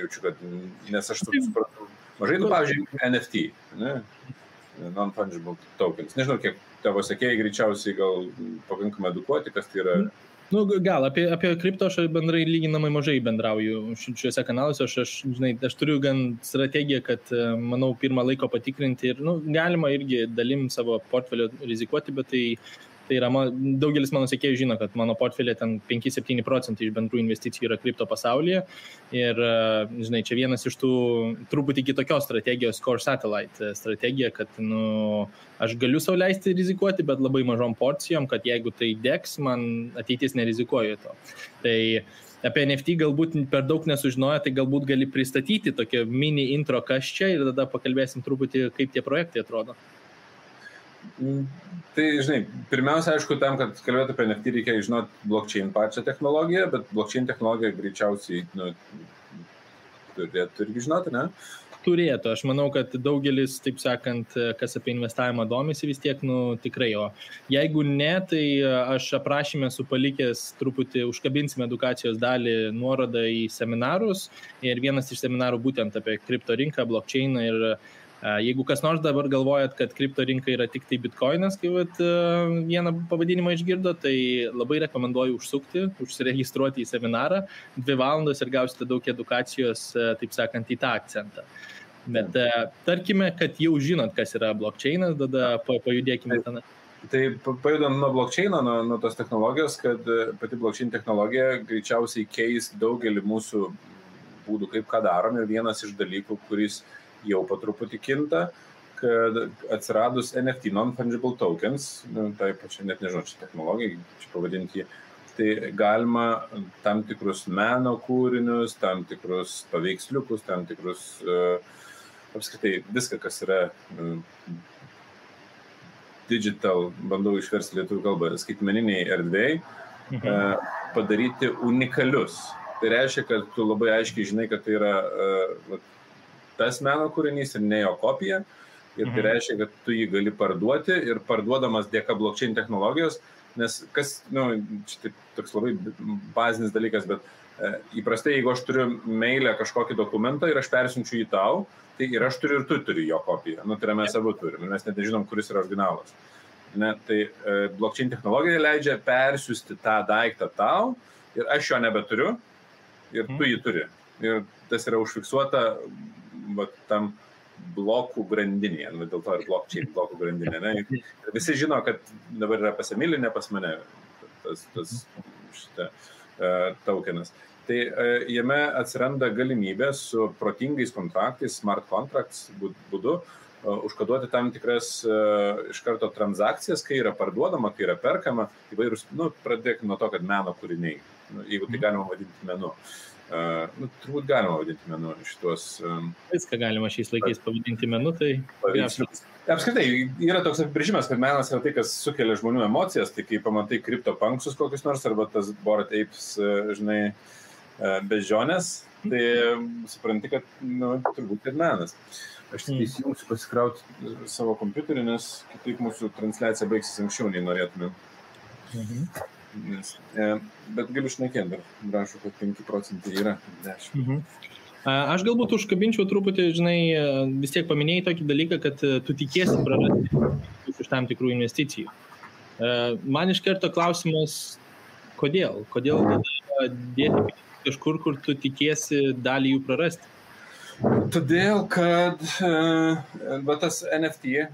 jaučiu, kad, nes aš supratau, mažai, pavyzdžiui, NFT, ne? Non-fungible tokens. Nežinau, kiek tavo sekėjai greičiausiai gal pakankamai edukuoti, kas tai yra.
Gal, apie kripto aš bendrai lyginamai mažai bendrauju šiuose kanaluose. Aš turiu gan strategiją, kad, manau, pirmą laiko patikrinti ir, galima irgi dalim savo portfelio rizikuoti, bet tai yra, daugelis mano sekėjų žino, kad mano portfelė ten 5-7% iš bendrų investicijų yra kripto pasaulyje. Ir, žinai, čia vienas iš tų truputį kitokios strategijos, core satellite strategija, kad, aš galiu sau leisti rizikuoti, bet labai mažom porcijom, kad jeigu tai degs, man ateitis nerizikuoju to. Tai apie NFT galbūt per daug nesužinojo, tai galbūt gali pristatyti tokią mini intro kas čia ir tada pakalbėsim truputį, kaip tie projektai atrodo.
Tai, žinai, pirmiausia, aišku, tam, kad kalbėtų apie NFT, reikia žinoti blockchain pačią technologiją, bet blockchain technologiją greičiausiai turėtų irgi žinoti, ne?
Turėtų. Aš manau, kad daugelis, taip sakant, kas apie investavimą domisi vis tiek, tikrai. O jeigu ne, tai aš aprašyme esu palikęs truputį, užkabinsime edukacijos dalį nuorodą į seminarus ir vienas iš seminarų būtent apie kripto rinką, blockchainą ir jeigu kas nors dabar galvojat, kad kripto rinka yra tik tai bitcoinas, kai vieną pavadinimą išgirdo, tai labai rekomenduoju užsiregistruoti į seminarą 2 valandos ir gausite daug edukacijos, taip sakant, į tą akcentą. Bet tarkime, kad jau žinot, kas yra blockchainas, tada pajudėkime ten.
Tai pajudam nuo blockchaino, nuo tos technologijos, kad pati blockchain technologija greičiausiai keis daugelį mūsų būdų, kaip ką darom. Ir vienas iš dalykų, kuris jau po truputį kinta, kad atsiradus NFT, non-fungible tokens, tai pačiai net nežinau, čia technologija, čia pavadinti, tai galima tam tikrus meno kūrinius, tam tikrus paveiksliukus, tam tikrus, apskritai, viską, kas yra digital, bandau išversti lietuvių kalbą, skaitmeniniai erdvėjai, padaryti unikalius. Tai reiškia, kad tu labai aiškiai žinai, kad tai yra tas meno kūrinys ir ne jo kopija. Ir tai reiškia, kad tu jį gali parduoti ir parduodamas dėka blockchain technologijos, nes kas, čia toks labai bazinis dalykas, bet įprastai, jeigu aš turiu mailę kažkokį dokumentą ir aš persiunčiu jį tau, tai ir aš turiu ir tu turi jo kopiją. Tai yra mes abu turim, mes net nežinom, kuris yra originalas. ne, tai blockchain technologija leidžia persiųsti tą daiktą tau ir aš jo nebeturiu ir tu jį turi. Ir tas yra užfiksuota tam blokų grandinėje, dėl to ir blockchain blokų grandinė. Ne? Ir visi žino, kad dabar yra pas Emilį, ne pas mane šitą tokenas. Tai jame atsiranda galimybė su protingais kontraktais, smart contracts būdu, užkoduoti tam tikras iš karto transakcijas, kai yra parduodama, kai yra perkama, įvairūs, pradėkime nuo to, kad meno kūriniai, jeigu tai galima vadinti menu. Turbūt galima vadinti menu šitos...
Viską galima šiais laikais pavadinti menu, tai...
Apskritai, yra toks apibrėžimas, kad menas yra tai, kas sukelia žmonių emocijas, tai kai pamatai CryptoPunksus kokius nors, arba tas Bored Apes, žinai, bežionės, tai supranti, kad turbūt ir menas. Aš tik įsijungsiu pasikrauti savo kompiuterį, nes kitaip mūsų transliacija baigsis anksčiau, nei norėtume. Bet galiu šnekėti, dar rašau, kad 5% yra 10.
Aš galbūt užkabinčiau truputį, žinai, vis tiek paminėjai tokį dalyką, kad tu tikiesi prarasti iš tam tikrų investicijų. Man iš karto klausimas, kodėl? Kodėl dėti kažkur, kur tu tikiesi dalį jų prarasti?
Todėl, kad tas NFT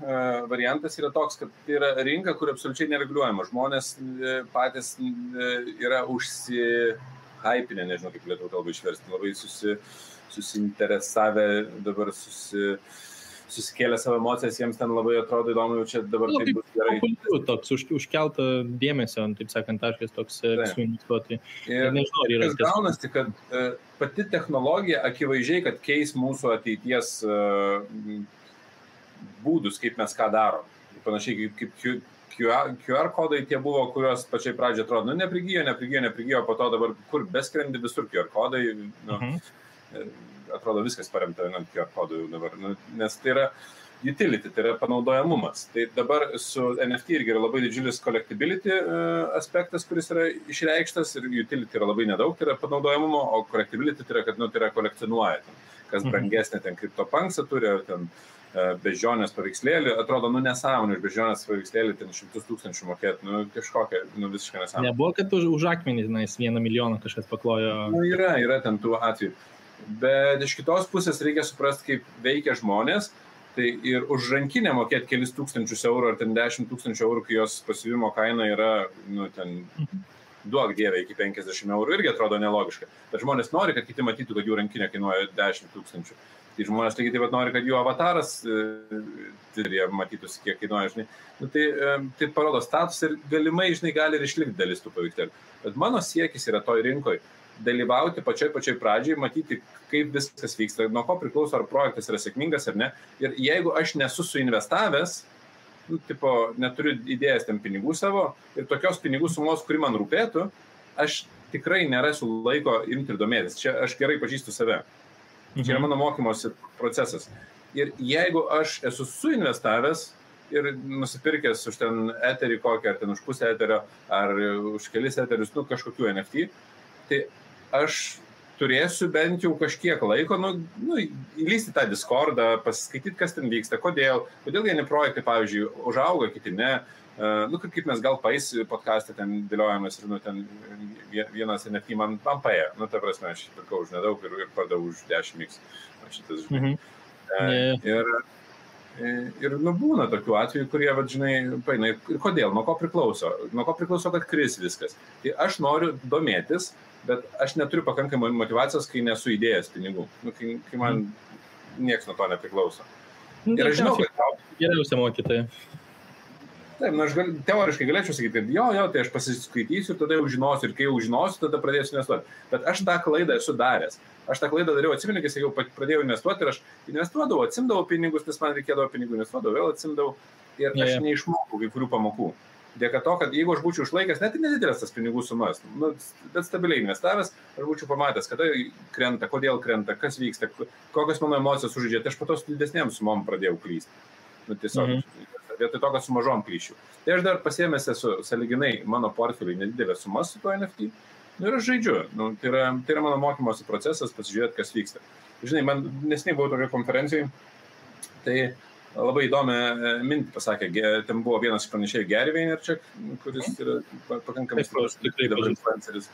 variantas yra toks, kad tai yra rinka, kur absoliučiai nereguliuojama. Žmonės patys yra užsihypinę, nežinau kaip lietuvių kalbą išversti, labai susiinteresavę, dabar susikėlę savo emocijas, jiems ten labai atrodo įdomu, jau čia dabar tai bus gerai.
Toks užkelta dėmesio, taip sakant, taškas toks suinvestuoti.
Ir nežinau, kas gaunasi, kad pati technologija akivaizdžiai, kad keis mūsų ateities būdus, kaip mes ką darom. Panašiai kaip QR kodai tie buvo, kurios pačiai pradžiai atrodo, neprigijo, po to dabar kur beskrendi visur QR kodai, atrodo viskas paremta ant QR kodų jau dabar, nes tai yra utility, tai yra panaudojamumas. Tai dabar su NFT irgi yra labai didžiulis collectibility aspektas, kuris yra išreikštas ir utility yra labai nedaug, tai yra panaudojamumo, o collectibility tai yra, kad tai yra kolekcionuoja. Kas brangesnė ten CryptoPunksą turi, ar ten bežionės paveikslėlį, atrodo, nesąmonė, už bežionės paveikslėlį ten 100 000 mokėti, kažkokia, visiškai nesąmonė.
Nebuvo, kad už akmenį, 1 milijoną kažkas paklojo.
Yra ten tų atvejų. Bet iš kitos pusės reikia suprasti, kaip veikia žmonės, tai ir už rankinę mokėti kelis tūkstančius eurų ar ten 10 000 eurų, kai jos pasivimo kaina yra, ten duok dievė iki 50 eurų, irgi atrodo nelogiška. Bet žmonės nori, kad kiti matytų, kad jų rankinė kainuoja 10 000. Tai žmonės lygiai taip pat nori, kad jų avataras matytųsi, kiek kainuoja, žinai. Tai parodo status ir galimai, žinai, gali ir išlikti dalis tų paveikslėlių. Bet mano siekis yra toj rinkoje dalyvauti pačioj pradžiai, matyti, kaip viskas vyksta, nuo ko priklauso, ar projektas yra sėkmingas ar ne. Ir jeigu aš nesu suinvestavęs, neturiu idėjas ten pinigų savo ir tokios pinigų sumos, kuri man rūpėtų, aš tikrai nerasiu laiko imti ir domėtis. Čia aš gerai pažįstu save. Čia yra mano mokymosi procesas. Ir jeigu aš esu suinvestavęs ir nusipirkęs už ten eterį kokį, ar ten už pusę eterio, ar už kelis eterius, kažkokių NFT, tai aš turėsiu bent jau kažkiek laiko, įlysti tą Discordą, pasiskaityti, kas ten vyksta, kodėl vieni projektai, pavyzdžiui, užauga, kiti ne, kaip mes gal podcast'e ten dėliojamės ir ten vienas NFT man paėjo, ta prasme, aš pirkau už nedaug ir pardavau už 10x, šitas, žinai. Ir būna tokių atvejų, kurie, žinai, paina, ir kodėl, nuo ko priklauso, kad kris viskas. Tai aš noriu domėtis, bet aš neturiu pakankamai motivacijos, kai nesu įdėjęs pinigų, kai man nieks nuo to nepriklauso. Ir aš žinau, kad...
Geriausia mokytoja.
Taip, aš teoriškai galėčiau sakyti, kad jo, tai aš pasiskaitysiu ir tada jau žinosiu, ir kai jau žinosiu, tada pradėsiu investuoti. Bet aš tą klaidą esu daręs. Aš tą klaidą dariau, atsimenu, kai jau pradėjau investuoti ir aš investuodavau, atsimdavau pinigus, nes man reikėdavo pinigų, investuodavau, vėl atsimdavau ir aš neišmokau kai kurių pamokų. Dėka to, kad jeigu aš būčiau išlaikęs, net ir nedidelės tas pinigų sumas, bet stabiliai investavęs, aš būčiau pamatęs, kada krenta, kodėl krenta, kas vyksta, kokios mano emocijos sužaidžia, tai aš po to su didesnėm sumom pradėjau klysti. Tiesiog, vietoj to, kad su mažom klyščiau. Tai aš dar pasiėmęs esu sąlyginai mano portfeliui nedidelės sumas su to NFT. Ir aš žaidžiu. Tai yra mano mokymosi procesas, pasižiūrėti, kas vyksta. Žinai, man nesiniai buvau tokia konferencijai, tai labai įdomią mintį pasakė, ten buvo vienas pranešėjų Gary Vaynerchuk, kuris yra pakankamai stiprus dabar influenceris.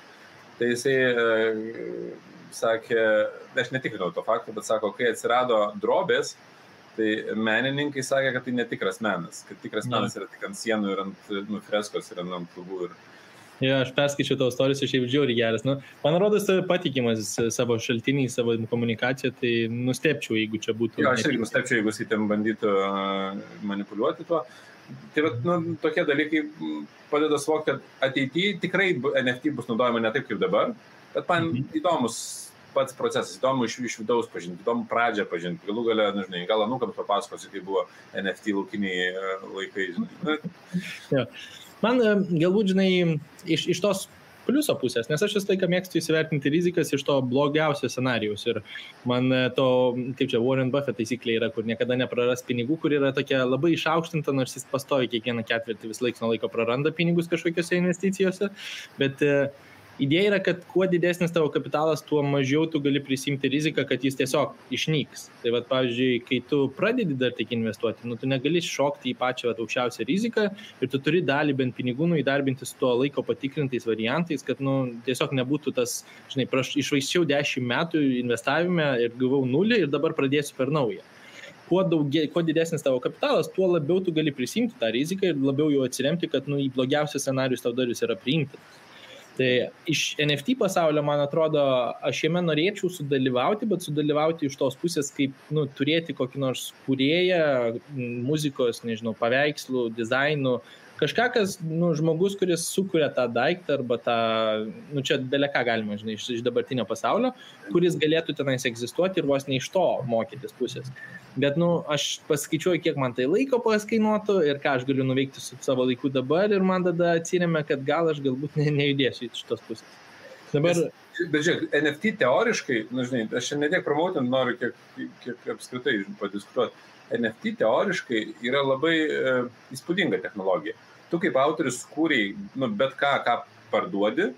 Tai jisai sakė, aš netikrinau to fakto, bet sako, kai atsirado drobės, tai menininkai sakė, kad tai netikras menas, kad tikras menas yra tik ant sienų ir ant freskos ir ant lubų.
Ja, aš perskaičiau tavo istorijas, aš jau žiauriai geras. Man rodos, patikimas savo šaltiniai, savo komunikaciją, tai nustepčiau, jeigu čia būtų.
Ja, aš irgi nustepčiau, jeigu jis ten bandytų manipuliuoti tuo. Tai tokie dalykai padeda suvokti, kad ateityje tikrai NFT bus naudojama ne taip kaip dabar, bet man įdomus pats procesas, įdomu iš vidaus pažinti, įdomu pradžią pažinti, galų gale, nežinai, gal anūkams papasakosiu, kai buvo NFT laukiniai laikai, žinai.
Ja. Man galbūt, žinai, iš tos pliuso pusės, nes aš visą laiką mėgstu įsivertinti rizikas iš to blogiausio scenarijaus ir man to, kaip čia, Warren Buffett taisyklė yra, kur niekada nepraras pinigų, kur yra tokia labai išaukštinta, nors jis pastovi kiekvieną ketvirtį vis laiks nuo laiko praranda pinigus kažkokiose investicijose, bet idėja yra, kad kuo didesnis tavo kapitalas, tuo mažiau tu gali prisimti riziką, kad jis tiesiog išnyks. Tai vat, pavyzdžiui, kai tu pradedi dar tik investuoti, tu negali šokti į pačią aukščiausią riziką ir tu turi dalį bent pinigų įdarbinti su tuo laiko patikrintais variantais, kad tiesiog nebūtų tas, žinai, išvaisčiau 10 metų investavime ir gavau 0 ir dabar pradėsiu per naują. Kuo didesnis tavo kapitalas, tuo labiau tu gali prisimti tą riziką ir labiau jau atsiremti, kad į blogiausius scenarius tau dar jis yra priimtas. Tai iš NFT pasaulio, man atrodo, aš jame norėčiau sudalyvauti, bet sudalyvauti iš tos pusės, kaip turėti kokį nors kūrėją, muzikos, nežinau, paveikslų, dizainų, kažką, kas, žmogus, kuris sukuria tą daiktą arba tą, čia beleką galima, žinai, iš dabartinio pasaulio, kuris galėtų tenais egzistuoti ir vos ne iš to mokytis pusės. Bet, aš paskaičiuoju, kiek man tai laiko paskainuotų ir ką aš galiu nuveikti su savo laiku dabar ir man tada atsiremia, kad gal aš galbūt nejudėsiu iš tos pusės. Dabar...
Bet žiūrėk, NFT teoriškai, žinai, aš čia netiek promautinti noriu, kiek apskritai padiskutuoti. NFT teoriškai yra labai įspūdinga technologija. Tu kaip autorius kūrei bet ką parduodi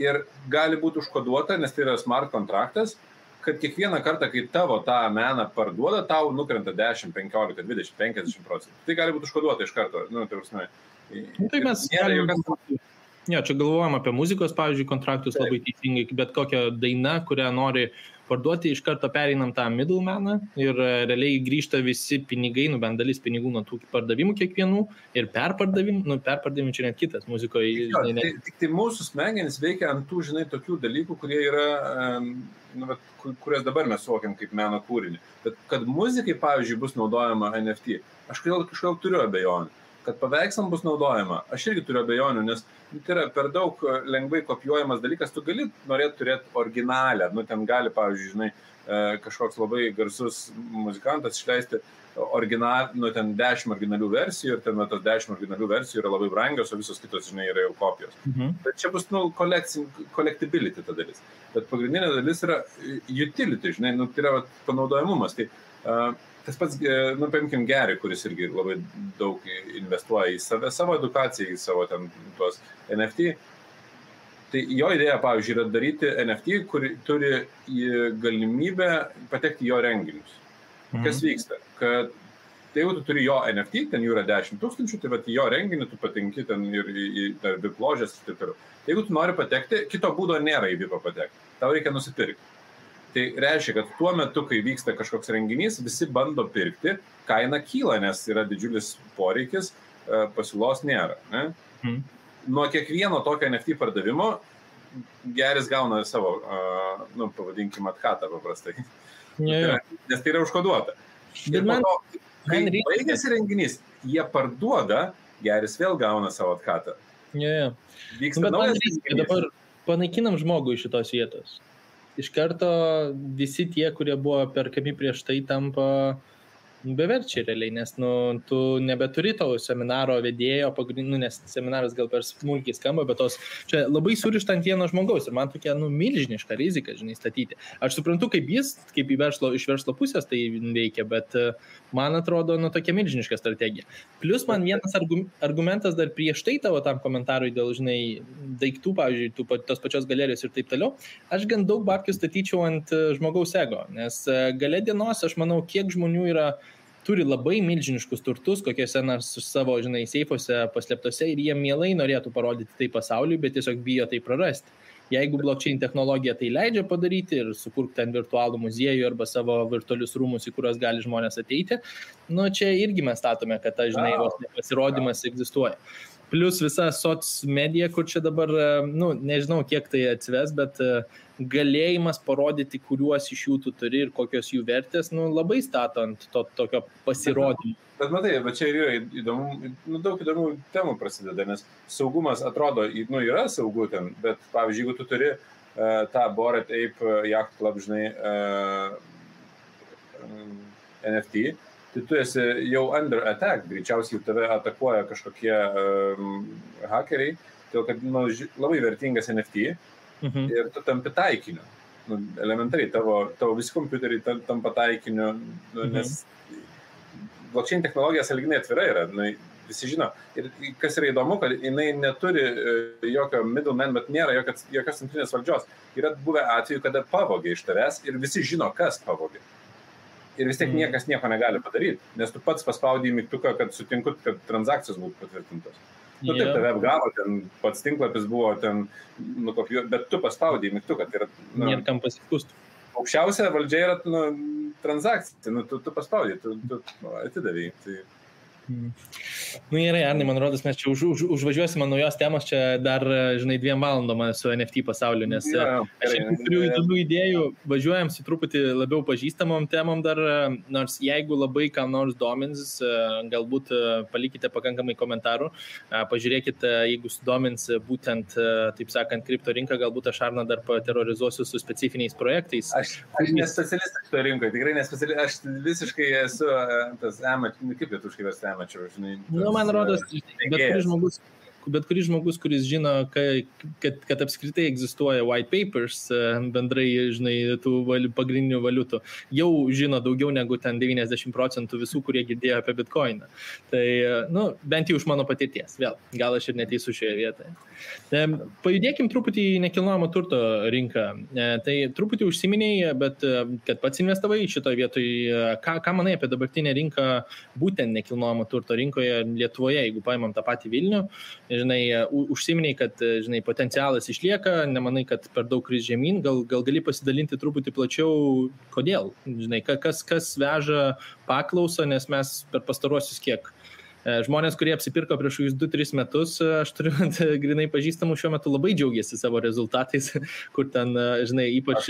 ir gali būti užkoduota, nes tai yra smart kontraktas, kad kiekvieną kartą, kai tavo tą meną parduoda, tau nukrenta 10, 15, 20, 50%. Tai gali būti užkoduota iš karto. Tai prasme.
Tai mes čia galvojam apie muzikos, pavyzdžiui, kontraktus labai teisingai, bet kokią dainą, kurią nori parduoti, iš karto pereinam tą middlemaną ir realiai grįžta visi pinigai, bent dalis pinigų nuo tų pardavimų kiekvienų ir perpardavimų čia net kitas muzikoje.
Tik tai mūsų smegenys veikia ant tų, žinai, tokių dalykų, kurie yra, kurias dabar mes suvokiam kaip meno kūrinį. Bet kad muzikai, pavyzdžiui, bus naudojama NFT, aš kažkaip turiu abejonių. Kad paveikslam bus naudojama, aš irgi turiu abejonių, nes tai yra per daug lengvai kopijuojamas dalykas, tu gali norėti turėti originalę, ten gali, pavyzdžiui, žinai, kažkoks labai garsus muzikantas išleisti ten 10 originalių versijų ir ten tos 10 originalių versijų yra labai brangios, o visos kitos, žinai, yra jau kopijos. Bet čia bus, collectibility ta dalis. Bet pagrindinė dalis yra utility, žinai, tai yra panaudojamumas. Tai tas pats, paimkim Gary, kuris irgi labai daug investuoja į savo edukaciją, į savo ten tuos NFT. Tai jo idėja, pavyzdžiui, yra daryti NFT, kur turi galimybę patekti į jo renginius. Kas vyksta? Kad jeigu tu turi jo NFT, ten jų yra 10 000, tai vat į jo renginį tu patenki ten ir į VIP ložės ir taip toliau. Jeigu tu nori patekti, kito būdo nėra į VIP patekti. Tau reikia nusipirkti. Tai reiškia, kad tuo metu, kai vyksta kažkoks renginys, visi bando pirkti, kaina kyla, nes yra didžiulis poreikis, pasiūlos nėra. Ne? Nuo kiekvieno tokio NFT pardavimo Gary's gauna savo, pavadinkim, atkatą paprastai. Nes tai yra užkoduota. Ir po to, kai baigėsi renginys, jie parduoda, Gary's vėl gauna savo atkatą. Vyksta naujas renginys.
Dabar panaikinam žmogų iš šitos vietos. Iš karto visi tie, kurie buvo perkami prieš tai, tampa beverčiai realiai, nes tu nebeturi tavo seminaro vedėjo, nes seminaras gal per smulkiai skamba, bet čia labai surišta ant vieno žmogaus ir man tokia milžiniška rizika, žinai, statyti. Aš suprantu, kaip jis, kaip iš verslo pusės tai veikia, bet man atrodo, tokia milžiniška strategija. Plus man vienas argumentas dar prieš tai tavo tam komentarui dėl, žinai, daiktų, pavyzdžiui, tos pačios galerijos ir taip toliau, aš gan daug babkių statyčiau ant žmogaus ego, nes gale dienos, aš manau, kiek žmonių yra turi labai milžiniškus turtus, kokiuose nors savo, žinai, seifuose paslėptose ir jie mielai norėtų parodyti tai pasauliui, bet tiesiog bijo tai prarasti. Jeigu blockchain technologija tai leidžia padaryti ir sukurti ten virtualų muziejų arba savo virtualius rūmus, į kuriuos gali žmonės ateiti, nu čia irgi mes statome, kad ta, žinai, pasirodymas egzistuoja. Plus visa soc medija, kur čia dabar, nu, nežinau, kiek tai atsves, bet galėjimas parodyti, kuriuos iš jų tu turi ir kokios jų vertės, nu, labai statant tokio pasirodymą.
Bet matai, bet čia yra įdomu, nu, daug įdomų temų prasideda, nes saugumas atrodo, nu, yra saugu ten, bet, pavyzdžiui, jeigu tu turi tą Bored Ape Yacht Club, žinai, NFT, tai tu esi jau under attack, greičiausiai tave atakuoja kažkokie hakeriai, todėl kad nu, labai vertingas NFT ir tu tampi taikiniu. Nu, elementariai, tavo visi kompiuteriai tampa taikiniu, nu, nes blockchain technologija sąlyginai atvira yra, nu, visi žino. Ir kas yra įdomu, kad jinai neturi jokio middleman, bet nėra jokios centrinės valdžios. Yra buvę atveju, kada pavogė iš tavęs ir visi žino, kas pavogė. Ir vis tiek niekas nieko negali padaryti, nes tu pats paspaudai mygtuką, kad sutinku, kad transakcijos būtų patvirtintos. Nu, taip, tave apgavo, ten pats tinklapis buvo ten nukopijuoti, bet tu paspaudai mygtuką. Tai yra, nu,
nėra kam pasiskųsti.
Aukščiausia valdžia yra nu, transakcija, nu, tu paspaudai, tu atidavai. Tai...
Nu gerai, Arnai, man rodos, mes čia užvažiuosime naujos temos, čia dar, žinai, 2 valandom su NFT pasauliu, nes aš turiu įdomių idėjų, važiuojam su truputį labiau pažįstamom temom dar, nors jeigu labai kam nors domins, galbūt palikite pakankamai komentarų, pažiūrėkite, jeigu sudomins būtent, taip sakant, kripto rinką, galbūt aš Arną dar paterorizuosiu su specifiniais projektais.
Aš nespecialistas kripto rinkoje, tikrai nespecialistas, aš visiškai esu tas kaip lietuviškai versti amateur, žinai.
Nu, man rodos, bet kuris žmogus, kuris žino, kad apskritai egzistuoja white papers, bendrai, žinai, tų pagrindinių valiutų, jau žino daugiau negu ten 90% visų, kurie girdėjo apie Bitcoiną. Tai, nu, bent jau iš mano patirties, vėl, gal aš ir neteisiu šioje vietoje. Pajudėkim truputį į nekilnojamo turto rinką. Tai truputį užsiminėjai, bet kad pats investavai šitoje vietoje, ką manai apie dabartinę rinką, būtent nekilnojamo turto rinkoje Lietuvoje, jeigu paimam tą patį Vilnių, žinai, užsiminėjai, kad, žinai, potencialas išlieka, nemanai, kad per daug kris žemyn, gal gali pasidalinti truputį plačiau, kodėl, žinai, kas veža paklausą, nes mes per pastaruosius kiek žmonės, kurie apsipirko prieš 2-3 metus, aš turiu grinai pažįstamų šiuo metu labai džiaugiasi savo rezultatais, kur ten, žinai, ypač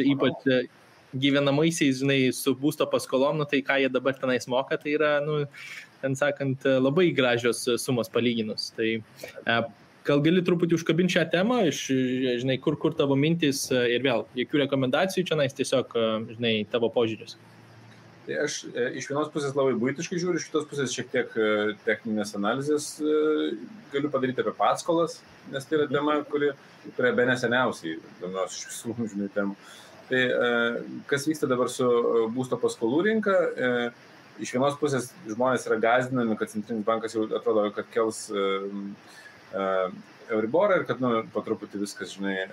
gyvenamaisiais, žinai, su būsto paskolom, nu, tai ką jie dabar tenais moka, tai yra, nu, ten sakant, labai gražios sumos palyginus. Tai gal gali truputį užkabinti šią temą, žinai, kur tavo mintis ir vėl, jokių rekomendacijų čia nais, tiesiog, žinai, tavo požiūris.
Tai aš iš vienos pusės labai buitiškai žiūriu, iš kitos pusės šiek tiek techninės analizės galiu padaryti apie paskolas, nes tai yra tema, kuri be neseniausiai domiuosi iš visų, žinai, temų. Tai kas vyksta dabar su būsto paskolų rinka, iš vienos pusės žmonės yra gąsdinami, kad Centrinis bankas jau atrodo, kad kels Euriborą ir kad, nu, po truputį viskas, žinai,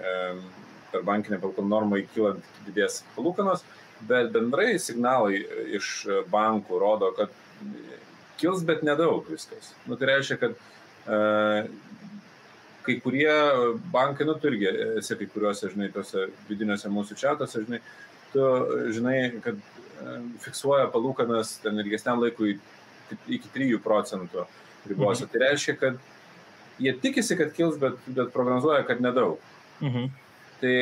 per bankinę palūkanų normą įkylant didės palūkanos. Bet bendrai signalai iš bankų rodo, kad kils, bet nedaug viskas. Nu, tai reiškia, kad kai kurie bankai, nu, tu irgi esi kai kuriuose, žinai, tose vidiniuose mūsų čiatuose, žinai, tu žinai, kad fiksuoja palūkanas ten ilgesniam laikui iki 3% ribose. Tai reiškia, kad jie tikisi, kad kils, bet prognozuoja, kad nedaug. Tai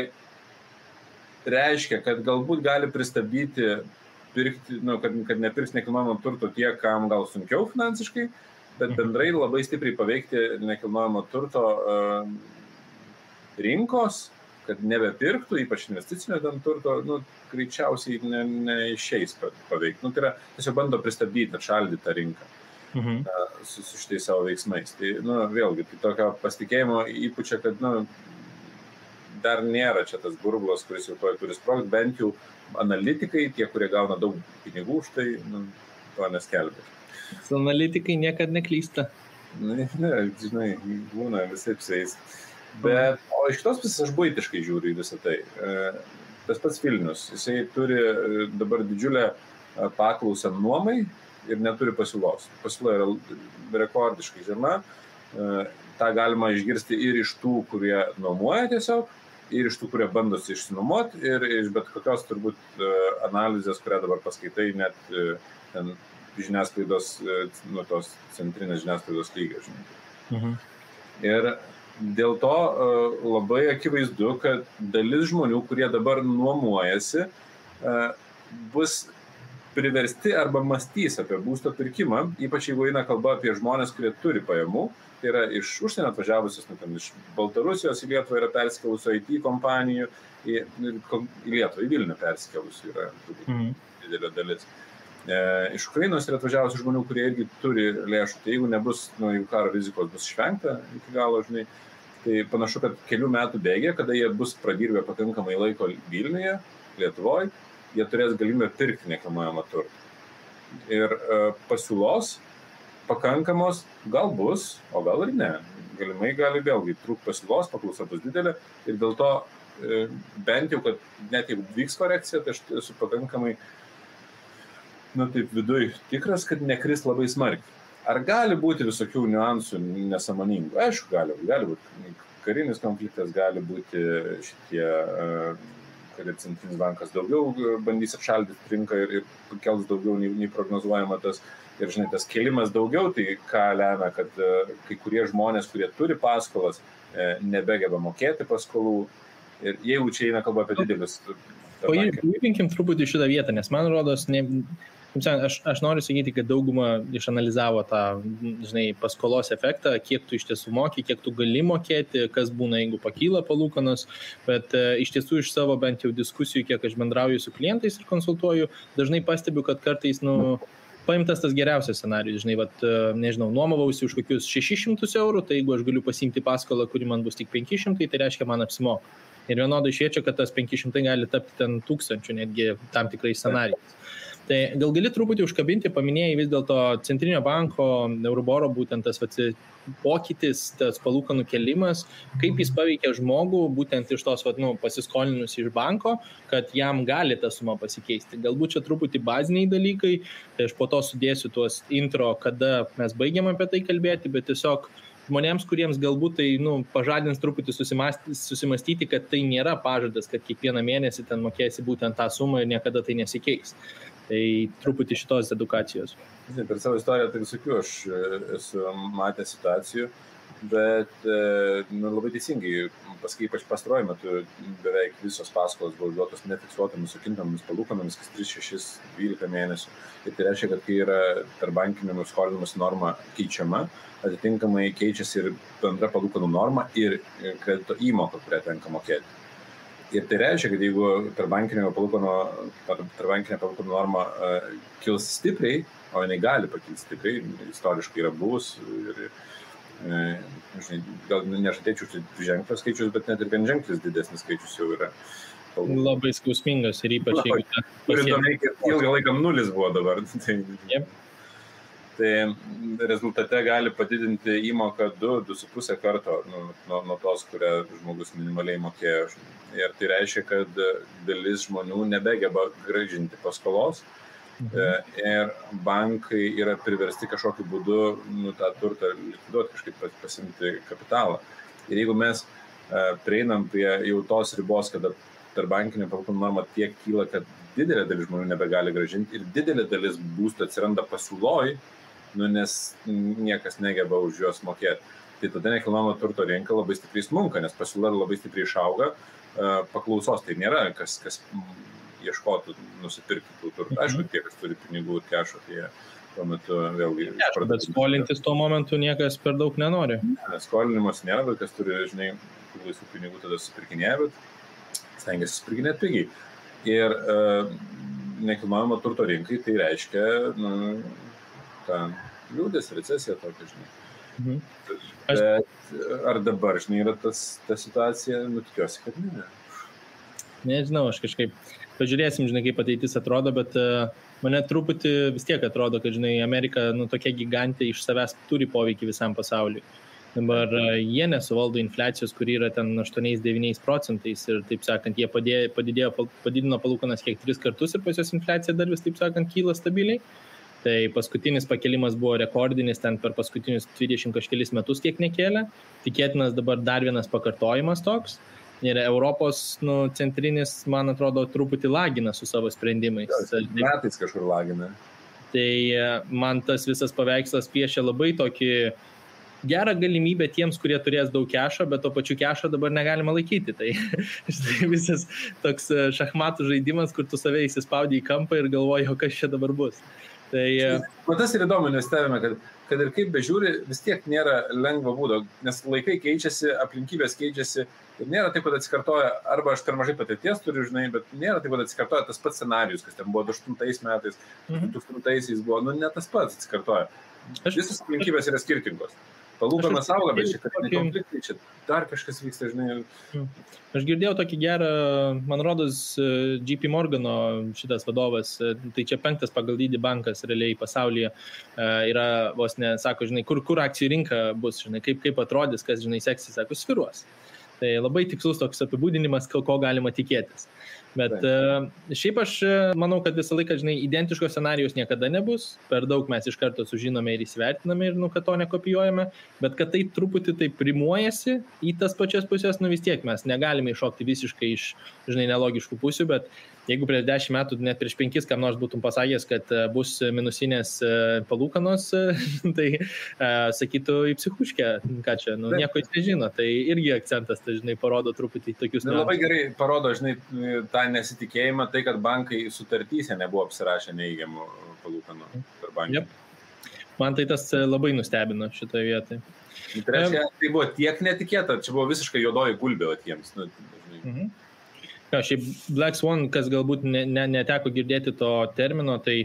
reiškia, kad galbūt gali pristabdyti pirkti, nu, kad nepirks nekilnojamo turto tie, kam gal sunkiau finansiškai, bet bendrai labai stipriai paveikti nekilnojamo turto rinkos, kad nebepirktų, ypač investicinio turto, nu, greičiausiai neišeis paveikti. Nu, tai yra, tiesiog bando pristabdyti, atšaldyti tą rinką su šitais savo veiksmais. Tai, nu, vėlgi, tai tokio pasitikėjimo įpučia, kad, nu, dar nėra čia tas burbulas, kuris jau turi sprogti, bent jau analitikai, tie, kurie gauna daug pinigų už tai, nu, to neskelbia.
Analitikai niekad neklysta.
Ne, žinai, būna visai psiais. Bet, o iš kitos pusės aš buitiškai žiūriu į visą tai. Tas pats Vilnius, jisai turi dabar didžiulę paklausą nuomai ir neturi pasiūlos. Pasiūla yra rekordiškai žema. Ta galima išgirsti ir iš tų, kurie nuomoja tiesiog, ir iš tų, kurie bandosi išsinuomoti, ir iš bet kokios turbūt analizės, kurią dabar paskaitai, net ten žiniasklaidos, tos centrinės žiniasklaidos lygio, žinai. Ir dėl to labai akivaizdu, kad dalis žmonių, kurie dabar nuomojasi, bus priversti arba mąstys apie būsto pirkimą, ypač jeigu eina kalba apie žmonės, kurie turi pajamų, tai yra iš užsienio atvažiavusios, iš Baltarusijos į Lietuvą yra persikelusių IT kompanijų, į Lietuvą, į Vilnių persikelusių yra didelė dalis. Iš Ukrainos yra atvažiavusių žmonių, kurie irgi turi lėšų, tai jeigu nebus, jeigu karo rizikos bus išvengta iki galo, žinai, tai panašu, kad kelių metų bėgė, kada jie bus pradirbę pakankamai laiko Vilniuje, Lietuvoje, jie turės galimybę pirkti nekilnojamą turtą. Ir pasiūlos pakankamos gal bus, o gal ir ne. Galimai gali vėlgi trūkti pasiūlos, paklausa bus didelė ir dėl to bent jau, kad net jeigu vyks korekcija, tai aš esu pakankamai taip viduj tikras, kad nekris labai smarkiai. Ar gali būti visokių niuansų nesąmoningų? Aišku, gali būti karinis konfliktas, gali būti šitie, kad centrinis bankas daugiau bandys apšaldyti rinką ir kels daugiau nei prognozuojama tas. Ir žinai, tas kėlimas daugiau, tai ką lemia, kad kai kurie žmonės, kurie turi paskolas, nebegeba mokėti paskolų. Ir jeigu čia eina kalba apie didelius...
Paimkim truputį šitą vietą, nes man rodos, aš noriu sakyti, kad dauguma išanalizavo tą, žinai, paskolos efektą, kiek tu iš tiesų moki, kiek tu gali mokėti, kas būna, jeigu pakyla palūkanos, bet iš tiesų iš savo bent jau diskusijų, kiek aš bendrauju su klientais ir konsultuoju, dažnai pastebiu, kad kartais, paimtas tas geriausias scenarijus, žinai, nežinau, nuomavausi už kokius 600 eurų, tai jeigu aš galiu pasiimti paskolą, kuri man bus tik 500, tai reiškia man apsimoka. Ir vienodai šviečia, kad tas 500 gali tapti ten 1000, netgi tam tikrais scenarijais. Tai gal gali truputį užkabinti, paminėjai vis dėlto Centrinio banko, Euriboro būtent tas pokytis, tas palūkanų kėlimas, kaip jis paveikia žmogų būtent iš tos pasiskolinus iš banko, kad jam gali ta suma pasikeisti. Galbūt čia truputį baziniai dalykai, tai aš po to sudėsiu tuos intro, kada mes baigiam apie tai kalbėti, bet tiesiog žmonėms, kuriems galbūt tai pažadins truputį susimastyti, kad tai nėra pažadas, kad kiekvieną mėnesį ten mokėsi būtent tą sumą ir niekada tai nesikeis. Tai truputį šitos edukacijos.
Per savo istoriją tai visokių aš esu matęs situacijų, bet labai teisingai, paskui ypač pastaruoju metu beveik visos paskolos buvo duotos nefiksuotomis su kintamomis palūkanomis, kas 3, 6, 12 mėnesių. Ir tai reiškia, kad kai yra tarpbankinio skolinimas norma keičiama, atitinkamai keičiasi ir bendra palūkanų norma ir kredito įmoka, kurią tenka mokėti. Ir tai reiškia, kad jeigu tarpbankinė palūkanų norma kils stipriai, o jinai gali pakilti stipriai, istoriškai yra buvus ir gal nežadėčiau ženklios skaičius, bet net ir vienženklis didesnis skaičius jau yra.
Labai skausmingas ir ypač jeigu...
Ilgą laiką nulis buvo dabar. Tai rezultate gali padidinti įmoką 2-2,5 karto nuo tos, kurią žmogus minimaliai mokėjo. Ir tai reiškia, kad dalis žmonių nebegeba grąžinti paskolos ir bankai yra priversti kažkokiu būdu tą turtą likviduoti, kažkaip pasimti kapitalą. Ir jeigu mes prieinam prie jau tos ribos, kada tarpbankinė palūkanų norma tiek kyla, kad didelė dalis žmonių nebegali grąžinti ir didelė dalis būstų atsiranda pasiūloj, nes niekas negeba už juos mokėti. Tai tada nekilnojamo turto rinka labai stipriai smunka, nes pasiūla labai stipriai išauga, paklausos tai nėra, kas ieškotų nusipirkti tų turtų. Aišku, tie, kas turi pinigų ir kešo, tai tuo metu vėlgi...
Bet skolintis tuo momentu niekas per daug nenori.
Skolinimas nėra, bet kas turi, žinai, laisvų pinigų tada supirkinėja, bet stengiasi supirkinėti pigiai. Ir nekilnojamo turto rinkai tai reiškia liūdės, recesija tokia, žinai. Bet ar dabar, žinai, yra ta situacija, tikiuosi, kad ne.
Nežinau, aš kažkaip pažiūrėsim, žinai, kaip ateitis atrodo, bet mane truputį vis tiek atrodo, kad, žinai, Amerika, tokia gigantė iš savęs turi poveikį visam pasauliui. Dabar jie nesuvaldo infliacijos, kuri yra ten 8-9% ir, taip sakant, jie padidino palūkanas kiek 3 kartus ir pas jos infliacija dar vis, taip sakant, kyla stabiliai. Tai paskutinis pakelimas buvo rekordinis, ten per paskutinius 20 kažkelis metus kiek nekėlė. Tikėtinas dabar dar vienas pakartojimas toks. Ir Europos centrinis, man atrodo, truputį lagina su savo sprendimais.
Metais kažkur lagina.
Tai man tas visas paveikslas piešia labai tokį gerą galimybę tiems, kurie turės daug kešo, bet to pačiu kešo dabar negalima laikyti. Tai visas toks šachmatų žaidimas, kur tu save įsispaudį į kampą ir galvoji, o kas čia dabar bus. Tai
tas ir įdomu, nes stebime, kad ir kaip bežiūri, vis tiek nėra lengvo būdo, nes laikai keičiasi, aplinkybės keičiasi ir nėra taip, kad atsikartoja, arba aš per mažai patirties turiu, žinai, bet nėra taip, kad atsikartoja tas pats scenarius, kas ten buvo 2008 metais, 2000 buvo, ne tas pats atsikartoja. Visos aplinkybės yra skirtingos. Palūkanos auga, bet čia konfliktai, čia dar kažkas vyksta, žinai.
Aš girdėjau tokį gerą, man rodos, JP Morgano šitas vadovas, tai čia 5 pagal dydį bankas realiai pasaulyje yra, vos ne, sako, žinai, kur akcijų rinka bus, žinai, kaip atrodys, kas, žinai, seksis, sako, sviruos. Tai labai tikslus toks apibūdinimas, ko galima tikėtis. Bet šiaip aš manau, kad visą laiką, žinai, identiškos scenarijos niekada nebus, per daug mes iš karto sužinome ir įsivertiname ir, kad to nekopijuojame, bet kad tai truputį tai primuojasi į tas pačias pusės, vis tiek mes negalime iššokti visiškai iš, žinai, nelogiškų pusių, bet jeigu prieš 10 metų, net prieš 5, kam nors būtum pasakęs, kad bus minusinės palūkanos, tai sakytų į psichuškę, ką čia, nieko jis nežino, tai irgi akcentas, tai, žinai, parodo truputį tokius...
Labai gerai parodo, žinai, tą nesitikėjimą, tai, kad bankai sutartyse nebuvo apsirašę neįgiamų palūkanų per banką.
Man tai tas labai nustebino šitoje vietoje.
Tai reiškia, tai buvo tiek netikėta, čia buvo visiškai juodoji gulbė tiems.
Šiaip Black Swan, kas galbūt neteko girdėti to termino, tai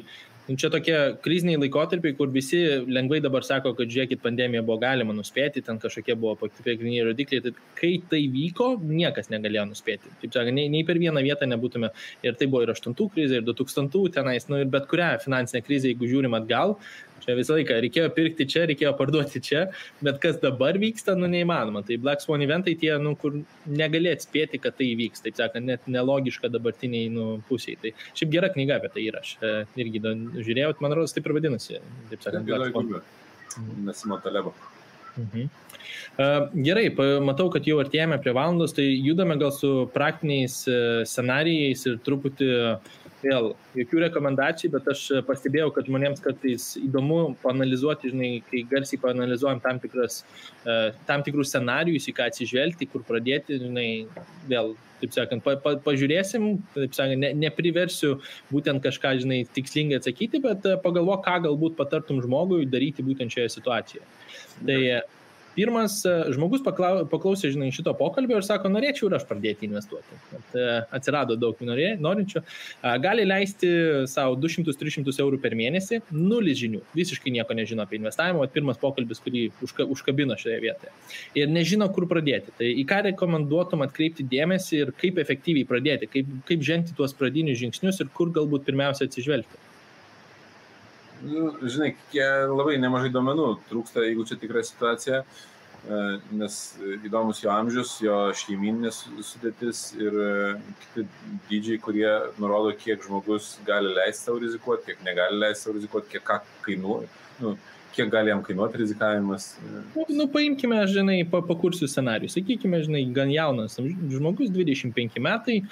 čia tokie kriziniai laikotarpiai, kur visi lengvai dabar sako, kad žiūrėkit, pandemija buvo galima nuspėti, ten kažkokie buvo pagrindiniai rodikliai, tai kai tai vyko, niekas negalėjo nuspėti. Taip sakant, nei per vieną vietą nebūtume, ir tai buvo ir 8 krizė, ir 2000 tenais, ir bet kurią finansinę krizę, jeigu žiūrim atgal, čia visą laiką reikėjo pirkti čia, reikėjo parduoti čia, bet kas dabar vyksta, neįmanoma. Tai Black Swan eventai tie, kur negali atspėti, kad tai įvyks, taip sakant, net nelogiška dabartiniai pusiai. Tai šiaip gera knyga apie tai yra, aš irgi žiūrėjau, man rodos, taip ir vadinasi, taip sakant, Black Swan.
Nasimo Talebo.
Gerai, matau, kad jau artėjame prie valandos, tai judame gal su praktiniais scenarijais ir truputį vėl jokių rekomendacijų, bet aš pastebėjau, kad žmonėms kartais įdomu paanalizuoti, žinai, kai garsiai paanalizuojam tam tikrus scenarijus, į ką atsižvelgti, kur pradėti, žinai, vėl, taip sakant, pažiūrėsim, taip sakant, nepriversiu būtent kažką, žinai, tikslingai atsakyti, bet pagalvok, ką galbūt patartum žmogui daryti būtent šioje situacijoje. Tai pirmas žmogus paklausė, žinai, šito pokalbio ir sako, norėčiau ir aš pradėti investuoti. Atsirado daug norinčių. Gali leisti savo 200-300 eurų per mėnesį, 0 žinių, visiškai nieko nežino apie investavimą, pirmas pokalbis, kurį užkabino šioje vietoje. Ir nežino, kur pradėti. Tai į ką rekomenduotum atkreipti dėmesį ir kaip efektyviai pradėti, kaip žengti tuos pradinius žingsnius ir kur galbūt pirmiausia atsižvelgti.
Žinai, labai nemažai duomenų trūksta, jeigu čia tikra situacija, nes įdomus jo amžius, jo šeiminės sudėtis ir kiti dydžiai, kurie nurodo, kiek žmogus gali leisti savo rizikuoti, kiek negali leisti savo rizikuoti, kiek gali jam kainuoti rizikavimas.
Paimkime, žinai, pakursiu scenarijų. Sakykime, žinai, gan jaunas žmogus, 25 metai,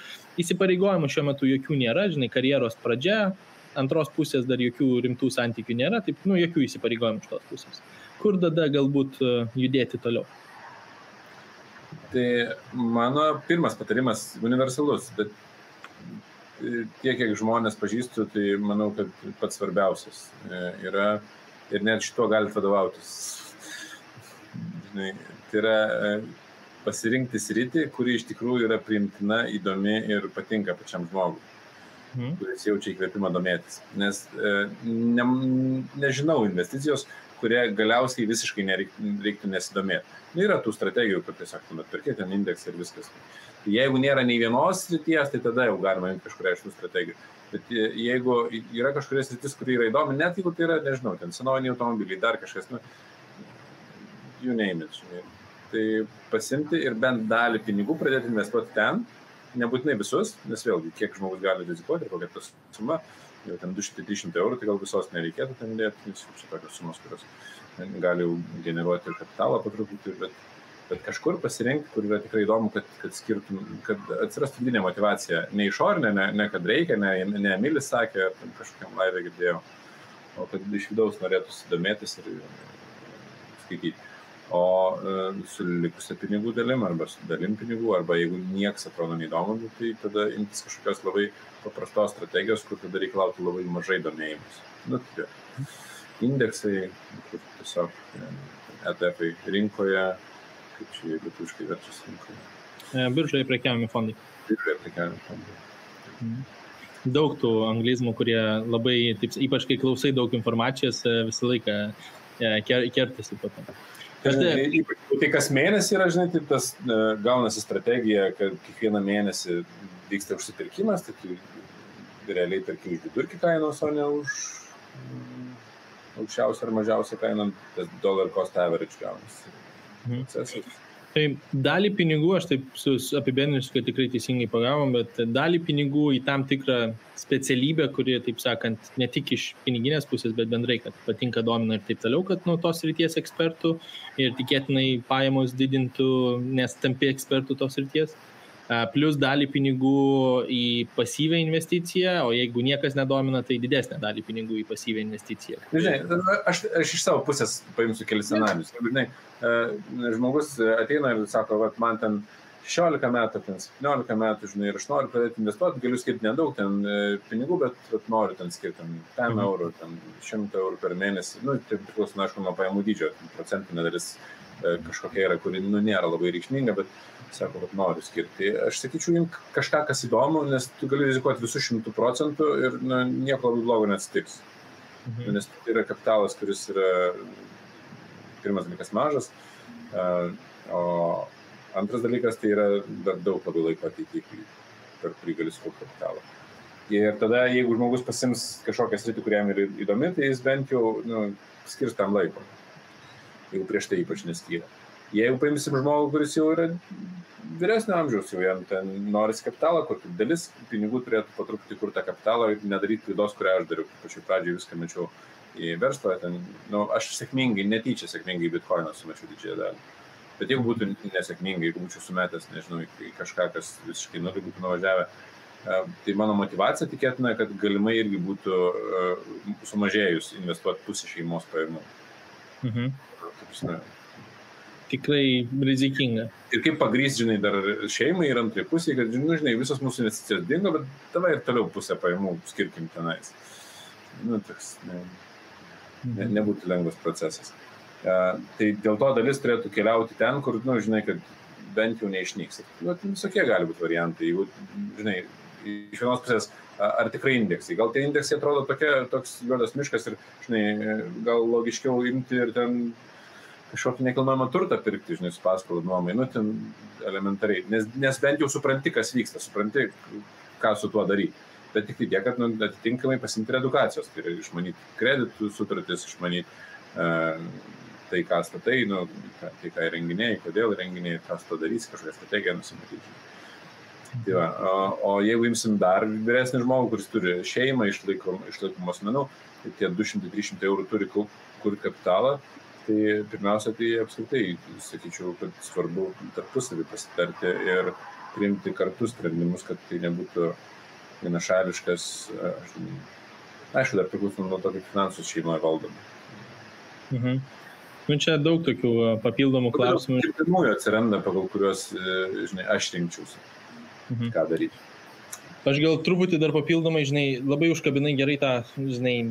įsipareigojimų šiuo metu jokių nėra, žinai, karjeros pradžia, antros pusės dar jokių rimtų santykių nėra, taip, jokių įsipareigojimų iš tos pusės. Kur tada galbūt judėti toliau?
Tai mano pirmas patarimas universalus, bet tiek, kiek žmonės pažįstu, tai manau, kad pats svarbiausias yra ir net šito galite vadovautis. Tai yra pasirinkti sritį, kuri iš tikrųjų yra priimtina, įdomi ir patinka pačiam žmogui, kuris jaučia įkvėpimą domėtis. Nes nežinau investicijos, kurie galiausiai visiškai nereiktų nesidomėti. Yra tų strategijų, kur tiesiog perkėti ten indeksą ir viskas. Jeigu nėra nei vienos srities, tai tada jau galima imti kažkuria iš tų strategijų. Bet jeigu yra kažkuria sritis, kuri yra įdomi, net jeigu tai yra, nežinau, ten senoviniai automobiliai, dar kažkas, you name it. Tai pasimti ir bent dalį pinigų pradėti investuoti ten, nebūtinai visus, nes vėlgi, kiek žmogus gali rizikuoti ir kokia ta suma, jau ten 200-300 eurų, tai gal visos nereikėtų ten dėti, nes čia tokios sumos, kurios gali generuoti ir kapitalą patruputį, bet kažkur pasirinkti, kur yra tikrai įdomu, kad atsirastų vidinė motivacija, ne išorinė, ne kad reikia, ne Emilis sakė, ar kažkokiam laivė girdėjau, o kad iš vidaus norėtųsi domėtis ir skaityti. O su likusia pinigų dalim, arba su dalim pinigų, arba jeigu nieks atrodo neįdomu, tai tada imtis kažkokios labai paprastos strategijos, kur tada reikalautų labai mažai domėjimus. Tai indeksai, kur tiesiog ETF rinkoje, kaip čia lietuviškai verčiasi rinkoje.
Biržoje prekiaujami fondai.
Biržoje prekiaujami fondai.
Daug tų anglizmų, kurie labai, taip, ypač kai klausai daug informacijos, visą laiką kertasi po to.
Tai kas mėnesį yra, žinai, tai tas gaunasi strategija, kad kiekvieną mėnesį vyksta užsipirkimas, tai tu realiai perki už vidurkį kainos, o ne už aukščiausią ar mažiausią kainą, tas dollar cost average gaunasi.
Tai dalį pinigų, aš taip apibendrinsiu, kad tikrai teisingai pagavom, bet dalį pinigų į tam tikrą specialybę, kuri, taip sakant, ne tik iš piniginės pusės, bet bendrai, kad patinka, domina ir taip toliau, kad nuo tos srities ekspertų ir tikėtinai pajamos didintų, nes tampi ekspertų tos srities. Plus dalį pinigų į pasyvią investiciją, o jeigu niekas nedomina, tai didesnę dalį pinigų į pasyvią investiciją.
Žinai, aš iš savo pusės paimsiu kelis scenarius. Žinai, žmogus ateina ir sako, man ten 16 metų, ten 17 metų, žinai, ir aš noriu pradėti investuoti, galiu skirti nedaug ten pinigų, bet noriu ten skirti 5 eurų, 100 eurų per mėnesį. Tai priklauso, aišku, nuo pajamų dydžio, procentinė dalis kažkokia yra, kuri nėra labai reikšminga, bet sako, kad noriu skirti. Aš sakyčiau, imk kažką, kas įdomu, nes tu gali rizikuoti visų 100% ir nieko labai blogo neatsitiks. Nes tai yra kapitalas, kuris yra pirmas dalykas mažas, o antras dalykas tai yra dar daug labai laiko ateityje, per kurį gali sukaupti kapitalą. Ir tada, jeigu žmogus pasims kažkokią sritį, kuriam yra įdomi, tai jis bent jau skirs tam laiko, jeigu prieš tai ypač neskyrė. Jeigu paimsim žmogų, kuris jau yra vyresnio amžiaus, jau jam ten norisi kapitalą, kur dalis pinigų turėtų po truputį kur tą kapitalą ir nedaryti klaidos, kurią aš dariau. Pačioj pradžiai viską mečiau į verslą, aš netyčia sėkmingai į bitcoiną sumečiau didžiąją dalį. Bet jeigu būtų nesėkmingai, jeigu būčiau sumetęs, nežinau, į kažką, kas visiškai nulį būtų nuvažiavę, tai mano motivacija tikėtina, kad galimai irgi būtų sumažėjus investuoti pusę šeimos pajamų.
Tikrai rizikinga.
Ir kaip pagrįsti, žinai, dar šeimai ir antrai pusėje, kad, žinai, visos mūsų investicijos dingo, bet tavai ir toliau pusę pajamų skirkim tenais. Toks nebūtų lengvas procesas. Tai dėl to dalis turėtų keliauti ten, kur, žinai, kad bent jau neišnyks. Visokie gali būti variantai. Jeigu, žinai, iš vienos pusės, ar tikrai indeksai. Gal tie indeksai atrodo toks juodas miškas ir, žinai, gal logiškiau imti ir ten kažkokį nekilnojamą turtą pirkti, žinai, su paskolų nuomai, ten elementariai, nes bent jau supranti, kas vyksta, supranti, ką su tuo daryti. Bet tik tiek, kad atitinkamai pasimti ir edukacijos, tai yra išmanyti kreditų sutartis, išmanyti tai, ką statai, tai, ką įrenginėjai, kodėl įrenginėjai, ką su to darysi, kažkokią strategiją nusimatyti. Tai va, o jeigu imsim dar vyresnį žmogų, kuris turi šeimą, išlaikomų asmenų, tai tie 200-300 eurų turi kur kapitalą, tai pirmiausia, tai apskritai, sakyčiau, kad svarbu tarpusavį pasitarti ir priimti kartu sprendimus, kad tai nebūtų vienašališkas, aišku, dar priklauso nuo to, kaip finansus šeimoje valdoma.
Čia daug tokių papildomų klausimų.
Ir pirmųjų atsiranda, pagal kuriuos, žinai, aš rinkčiausi, ką daryti.
Aš gal truputį dar papildomai, žinai, labai užkabinai gerai tą, žinai,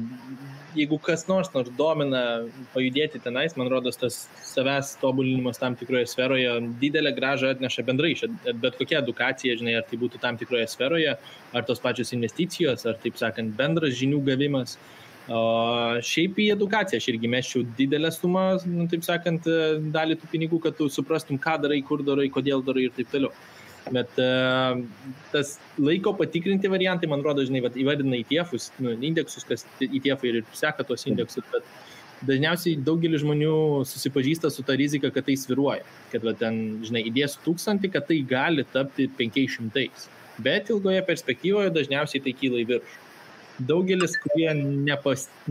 jeigu kas nors domina pajudėti tenais, man rodos, tas savęs tobulinimas tam tikroje sferoje didelę grąžą atneša bendrai, bet kokia edukacija, žinai, ar tai būtų tam tikroje sferoje, ar tos pačios investicijos, ar, taip sakant, bendras žinių gavimas. O šiaip į edukaciją aš irgi mesčiau didelę sumą, taip sakant, dalį tų pinigų, kad tu suprastum, ką darai, kur darai, kodėl darai ir taip toliau. Bet tas laiko patikrinti variantai, man rodo, žinai, įvardina ETF-us, indeksus, kas ETF ir seka tos indeksus, bet dažniausiai daugelis žmonių susipažįsta su ta rizika, kad tai sviruoja, kad ten, žinai, įdėsiu 1000, kad tai gali tapti 500, bet ilgoje perspektyvoje dažniausiai tai kyla į viršų. daugelis, kurie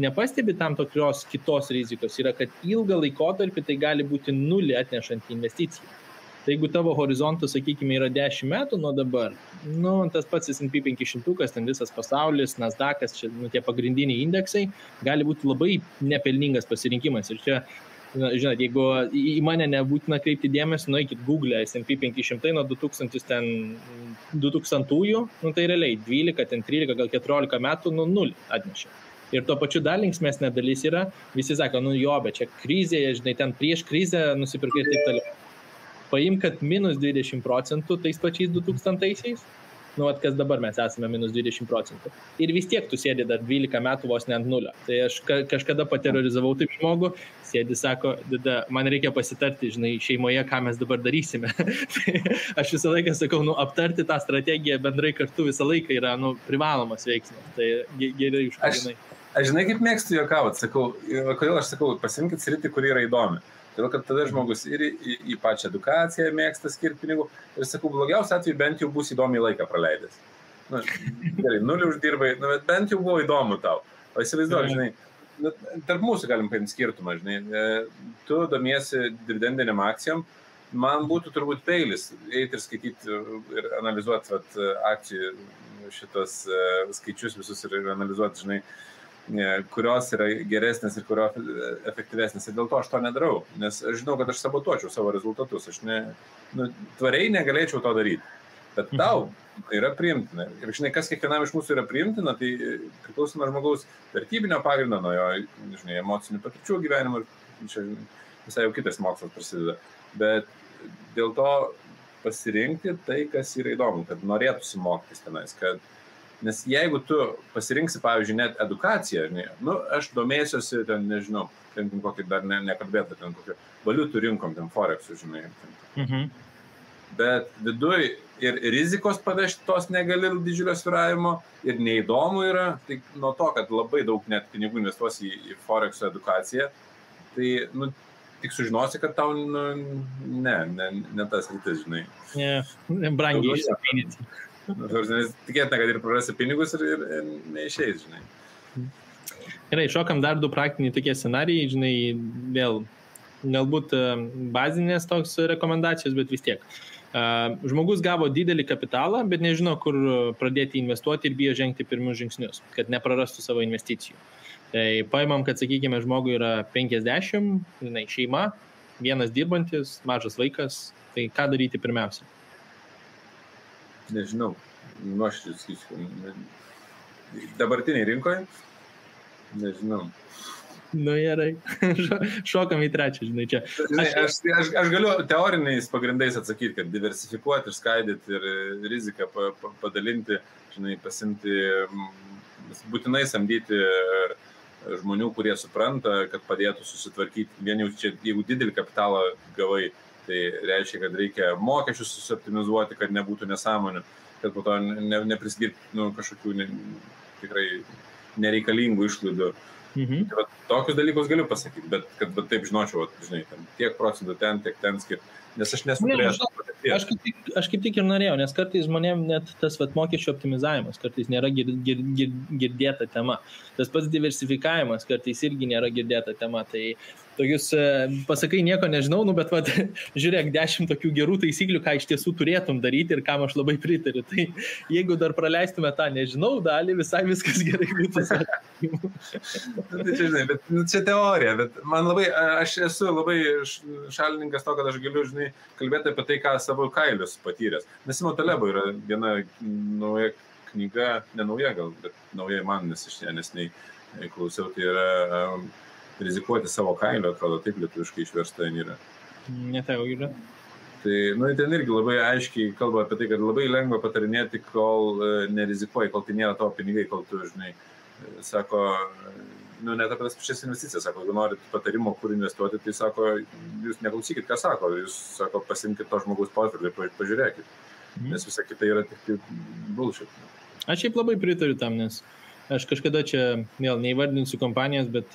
nepastebi tam tokios kitos rizikos, yra, kad ilgą laikotarpį tai gali būti nulį atnešant investiciją. Tai jeigu tavo horizontas, sakykime, yra 10 metų nuo dabar, tas pats S&P 500, ten visas pasaulis, Nasdaq'as, čia, tie pagrindiniai indeksai, gali būti labai nepelningas pasirinkimas. Ir čia, žinot, jeigu į mane nebūtina kreipti dėmesį, nueikit Google S&P 500 nuo 2000-ųjų, tai realiai 12, 13, gal 14 metų, 0 atnešė. Ir tuo pačiu dar linksmesnė dalis yra, visi sako, bet čia krizė, žinai, ten prieš krizę nusipirkai ir taip toliau. Paim, kad minus 20% tais pačiais 2000-aisiais, kas dabar mes esame minus 20%. Ir vis tiek tu sėdi dar 12 metų vos ne ant nulio. Tai aš kažkada paterorizavau taip žmogų, sėdi, sako, man reikia pasitarti, žinai, šeimoje, ką mes dabar darysime. Tai aš visą laiką sakau, aptarti tą strategiją bendrai kartu visą laiką yra, privalomas veiksmas. Tai gerai užkabinai.
Aš žinai, kaip mėgstu juokauti, sakau, kodėl aš sakau, pasimkit sritį, kuri yra įdomi. Todėl, kad tada žmogus ir į pačią edukaciją mėgsta skirti pinigų. Ir sakau, blogiausia atveju bent jau bus įdomiai laiką praleidęs. Gerai, 0 uždirbai, bet bent jau buvo įdomu tau. O įsivaizduoju, žinai, tarp mūsų galim paimti skirtumą, žinai. Tu domiesi dividendiniam akcijom, man būtų turbūt peilis eiti ir skaityti ir analizuoti akcijų šitos skaičius visus ir analizuoti, žinai, kurios yra geresnės ir kurios efektyvesnės. Ir dėl to aš to nedarau, nes aš žinau, kad aš sabotuočiau savo rezultatus. Aš tvariai negalėčiau to daryti. Bet tau yra priimtina. Ir žinai, kas kiekvienam iš mūsų yra priimtina, tai priklauso nuo žmogaus vertybinio pagrindo, nuo jo, žinai, emocinių patirčių gyvenimo. Čia visai jau kitas mokslas prasideda. Bet dėl to pasirinkti tai, kas yra įdomu, kad norėtųsi mokytis tenais, nes jeigu tu pasirinksi, pavyzdžiui, net edukaciją, aš domėsiuosi, ten, nežinau, ten kokį dar nekalbėtų, ten kokį valiutų rinkom, ten Forexų, žinai. Bet viduj ir rizikos pavežti tos negali didžiulio svyravimo ir neįdomu yra, tai nuo to, kad labai daug net pinigų investuosi į Forexų edukaciją, tai, tik sužinosi, kad tau, ne tas rytis, žinai.
Brangiai išsipinyti.
Tikėtina, kad ir prarasi pinigus ir neišeis, žinai.
Gerai, šokam dar 2 praktiniai tokie scenarijai, žinai, vėl galbūt bazinės toks rekomendacijos, bet vis tiek. Žmogus gavo didelį kapitalą, bet nežino, kur pradėti investuoti ir bijo žengti pirmus žingsnius, kad neprarastų savo investicijų. Tai paimam, kad, sakykime, žmogui yra 50, žinai, šeima, vienas dirbantis, mažas vaikas, tai ką daryti pirmiausia?
Nežinau, nuoširdžiai sakysiu. Dabartiniai rinkoje? Nežinau.
Gerai. Šokam į trečią, žinai, čia.
Aš galiu teoriniais pagrindais atsakyti, kad diversifikuoti ir skaidyti ir riziką padalinti, žinai, pasimti, būtinai samdyti žmonių, kurie supranta, kad padėtų susitvarkyti. Vien jau čia, jeigu didelį kapitalą gavai, tai reiškia, kad reikia mokesčius susoptimizuoti, kad nebūtų nesąmonių, kad po to nepriskirti kažkokių tikrai nereikalingų išlaidų. Tai tokius dalykus galiu pasakyti, bet kad taip žinočiau, žinai, tiek procentų ten, tiek ten skirti. Nes aš nesu turėjęs.
Aš kaip tik ir norėjau, nes kartais žmonėm net tas mokesčių optimizavimas kartais nėra girdėta tema. Tas pats diversifikavimas kartais irgi nėra girdėta tema. Tai tokius, pasakai, nieko nežinau, bet žiūrėk, 10 tokių gerų taisyklių, ką iš tiesų turėtum daryti ir kam aš labai pritariu. Tai jeigu dar praleistume tą nežinau dalį, visai viskas gerai būtų.
Tai čia, žinai, bet čia teorija, bet man labai, aš esu labai šalininkas to, kad aš galiu, žinai, kalbėti apie tai, ką savo kailius patyręs. Nasimo Talebo yra viena nauja knyga, ne nauja gal, bet nauja man, nes aš nesnei klausiau, tai yra rizikuoti savo kailiu, atrodo, taip lietuviškai išversta yra.
Netau yra.
Tai, ten irgi labai aiškiai kalba apie tai, kad labai lengva patarinėti, kol nerizikuoji, kol tai nėra tavo pinigai, kol tu, žinai, sako, net apie tas pačias investicijas, sako, jeigu norit patarimo, kur investuoti, tai sako, jūs neklausykit, ką sako, jūs, sako, pasimkit to žmogaus portfelį ir pažiūrėkit, nes visa kita yra tik bullshit.
Aš šiaip labai pritariu tam, nes aš kažkada čia, vėl neįvardinsiu kompanijos, bet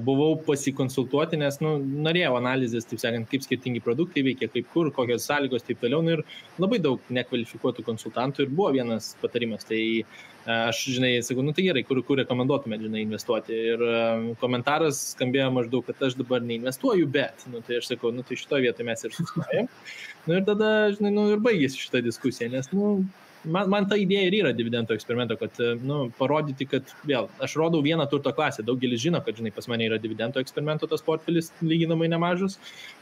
buvau pasikonsultuoti, nes norėjau analizės, taip sakant, kaip skirtingi produktai veikia, kaip kur, kokios sąlygos, taip toliau, ir labai daug nekvalifikuotų konsultantų ir buvo vienas patarimas, tai Aš, žinai, sakau, tai gerai, kur rekomenduotumėt, žinai, investuoti. Ir komentaras skambėjo maždaug, kad aš dabar neinvestuoju, bet, tai aš sakau, tai šitoje vietoje mes ir sustojam. Ir tada, žinai, ir baigėsi šitą diskusiją, nes, man ta idėja ir yra dividendo eksperimento, kad, parodyti, kad vėl, aš rodau vieną turto klasę, daugelis žino, kad, žinai, pas mane yra dividendo eksperimento tas portfelis lyginamai nemažas,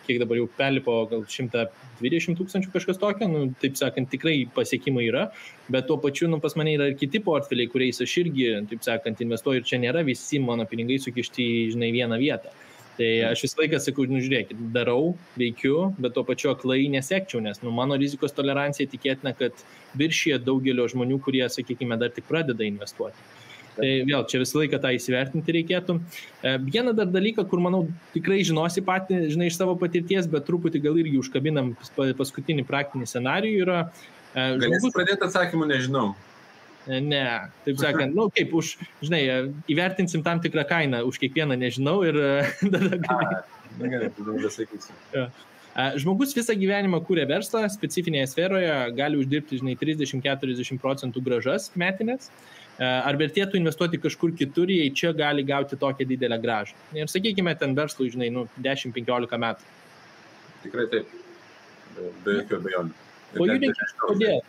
kiek dabar jau perlipo gal 120 000 kažkas tokio, taip sakant, tikrai pasiekimai yra, bet tuo pačiu, pas mane yra ir kiti portfeliai, kuriais aš irgi, taip sakant, investuoju ir čia nėra visi mano pinigai sukišti į, žinai, vieną vietą. Tai aš visą laiką sakau, žiūrėkit, darau, veikiu, bet tuo pačiu aklai nesekčiau, nes mano rizikos tolerancija tikėtina, kad viršyje daugelio žmonių, kurie, sakykime, dar tik pradeda investuoti. Tai vėl, čia visą laiką tą įsivertinti reikėtų. Vieną dar dalyką, kur, manau, tikrai žinosi patį, žinai, iš savo patirties, bet truputį gal irgi užkabinam paskutinį praktinį scenarijų yra...
Galėsi pradėti atsakymų, nežinau.
Ne, taip sakant, kaip už, žinai, įvertinsim tam tikrą kainą už kiekvieną, nežinau, ir tada
gerai, tada sakysiu.
Žmogus visą gyvenimą kūrė verslą, specifinėje sferoje gali uždirbti, žinai, 30-40% grąžas metinės. Ar vertėtų investuoti kažkur kitur, jei čia gali gauti tokią didelę grąžą? Ir sakykime, ten verslui, žinai, 10-15 metų.
Tikrai taip, be jokių abejonių.
O judėkit, kodėl?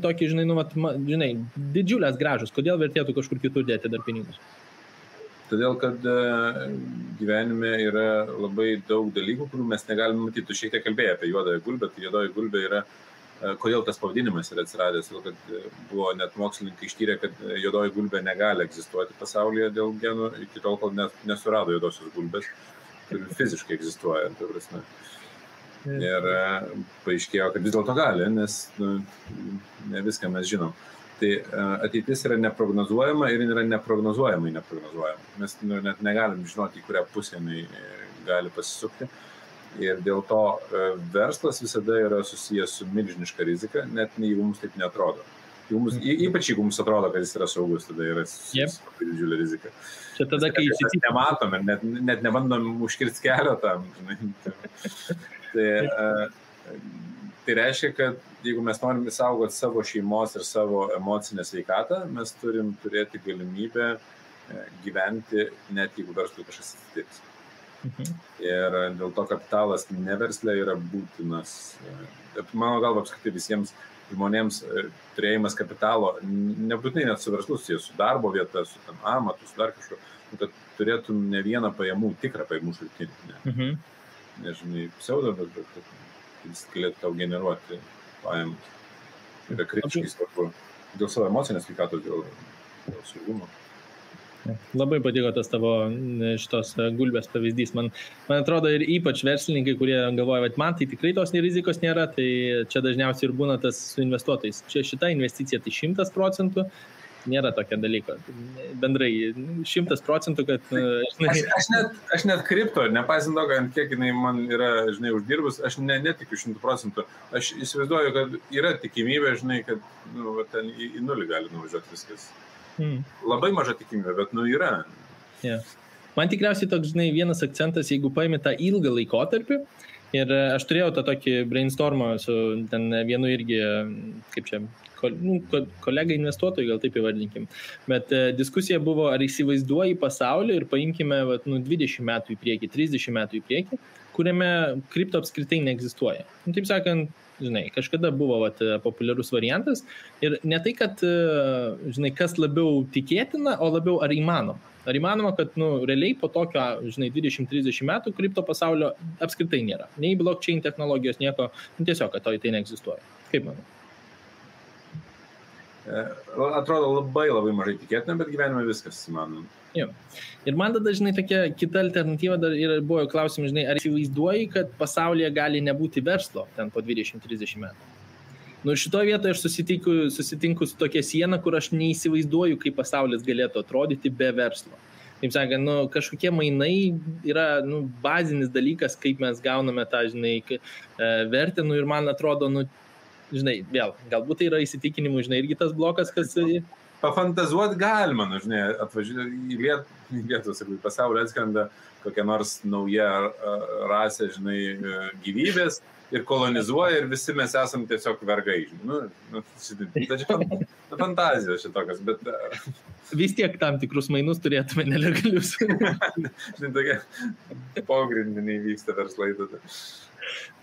Tokį, žinai, didžiulės grąžos, kodėl vertėtų kažkur kitur dėti dar pinigus?
Todėl, kad gyvenime yra labai daug dalykų, kurių mes negalime matyti. Tu šiek tiek kalbėjai apie juodąją gulbę, tai juodoji gulbė yra, kodėl tas pavadinimas yra atsiradęs, todėl, kad buvo net mokslininkai ištyrę, kad juodoji gulbė negali egzistuoti pasaulyje dėl genų, iki tol, kol nesurado juodosios gulbės, kuri fiziškai egzistuoja, tai prasme. Ir paaiškėjo, kad vis dėlto gali, nes ne viską mes žinom. Tai ateitis yra neprognozuojama ir yra neprognozuojamai neprognozuojama. Mes net negalim žinoti, į kurią pusę jinai gali pasisukti. Ir dėl to verslas visada yra susijęs su milžiniška rizika, net jeigu mums taip neatrodo. Ypač jeigu mums atrodo, kad jis yra saugus, tada yra susijęs su labai didžiulė rizika.
Čia tada, kai
mes nematom ir net nebandom užkirsti kelio tam. Tai reiškia, kad jeigu mes norim saugoti savo šeimos ir savo emocinę sveikatą, mes turim turėti galimybę gyventi, net jeigu verslui kažkas atsitiks. Ir dėl to kapitalas neverslė yra būtinas. Mano galva, apskritai visiems žmonėms turėjimas kapitalo, nebūtinai net su verslu, su darbo vieta, su amatu, su dar kažko, kad turėtum ne vieną pajamų, tikrą pajamų šaltinį. Nežinai, pseudo, bet jis galėtų tau generuoti pajamas. Yra kritiškai svarbu dėl savo emocinės sveikatos, dėl saugumo.
Labai patiko tas tavo šitos gulbės pavyzdys. Man atrodo ir ypač verslininkai, kurie galvoja, kad man tai tikrai tos rizikos nėra, tai čia dažniausiai ir būna tas su investuotojais. Čia šita investicija tai 100%. Nėra tokio dalyko. Bendrai 100%, kad...
Aš net kripto, nepaisant to, kad kiek jinai man yra, žinai, uždirbus, aš netikiu 100%. Aš įsivaizduoju, kad yra tikimybė, žinai, kad ten į nulį gali nuvažiuoti viskas. Labai maža tikimybė, bet yra.
Yeah. Man tikriausiai toks, žinai, vienas akcentas, jeigu paimi tą ilgą laikotarpį, ir aš turėjau tą tokį brainstormą su ten vienu irgi, kaip čia, kolega investuotojai, gal taip įvardinkim. Bet diskusija buvo, ar įsivaizduoji pasaulį ir paimkime 20 metų į priekį, 30 metų į priekį, kuriame kripto apskritai neegzistuoja. Taip sakant, žinai, kažkada buvo populiarus variantas ir ne tai, kad, žinai, kas labiau tikėtina, o labiau ar įmanoma. Ar įmanoma, kad, realiai po tokio, žinai, 20-30 metų kripto pasaulio apskritai nėra. Nei blockchain technologijos, nieko, tiesiog, kad to tai neegzistuoja. Kaip manai?
Atrodo labai mažai tikėtina, bet gyvenime viskas įmanoma.
Jo. Ir man tada, žinai, tokia kita alternatyva dar ir buvo klausimas, žinai, ar įsivaizduoji, kad pasaulyje gali nebūti verslo ten po 20-30 metų? Šitoje vietoje aš susitinku su tokia siena, kur aš neįsivaizduoju, kaip pasaulis galėtų atrodyti be verslo. Taip sakant, kažkokie mainai yra bazinis dalykas, kaip mes gauname tą, žinai, vertę, ir man atrodo, žinai, vėl, galbūt tai yra įsitikinimų, žinai, irgi tas blokas, kas
pafantazuoti galima, nu, žinai, atvažiuoti į Lietuvą, sakau, į pasaulį atskrenda kokia nors nauja rasė, žinai, gyvybės ir kolonizuoja ir visi mes esam tiesiog vergai, žinai. Tai čia fantazijos šitokios, bet...
Vis tiek tam tikrus mainus turėtume nelegalius.
Žinai, tokie pogrindiniai vyksta verslai tada.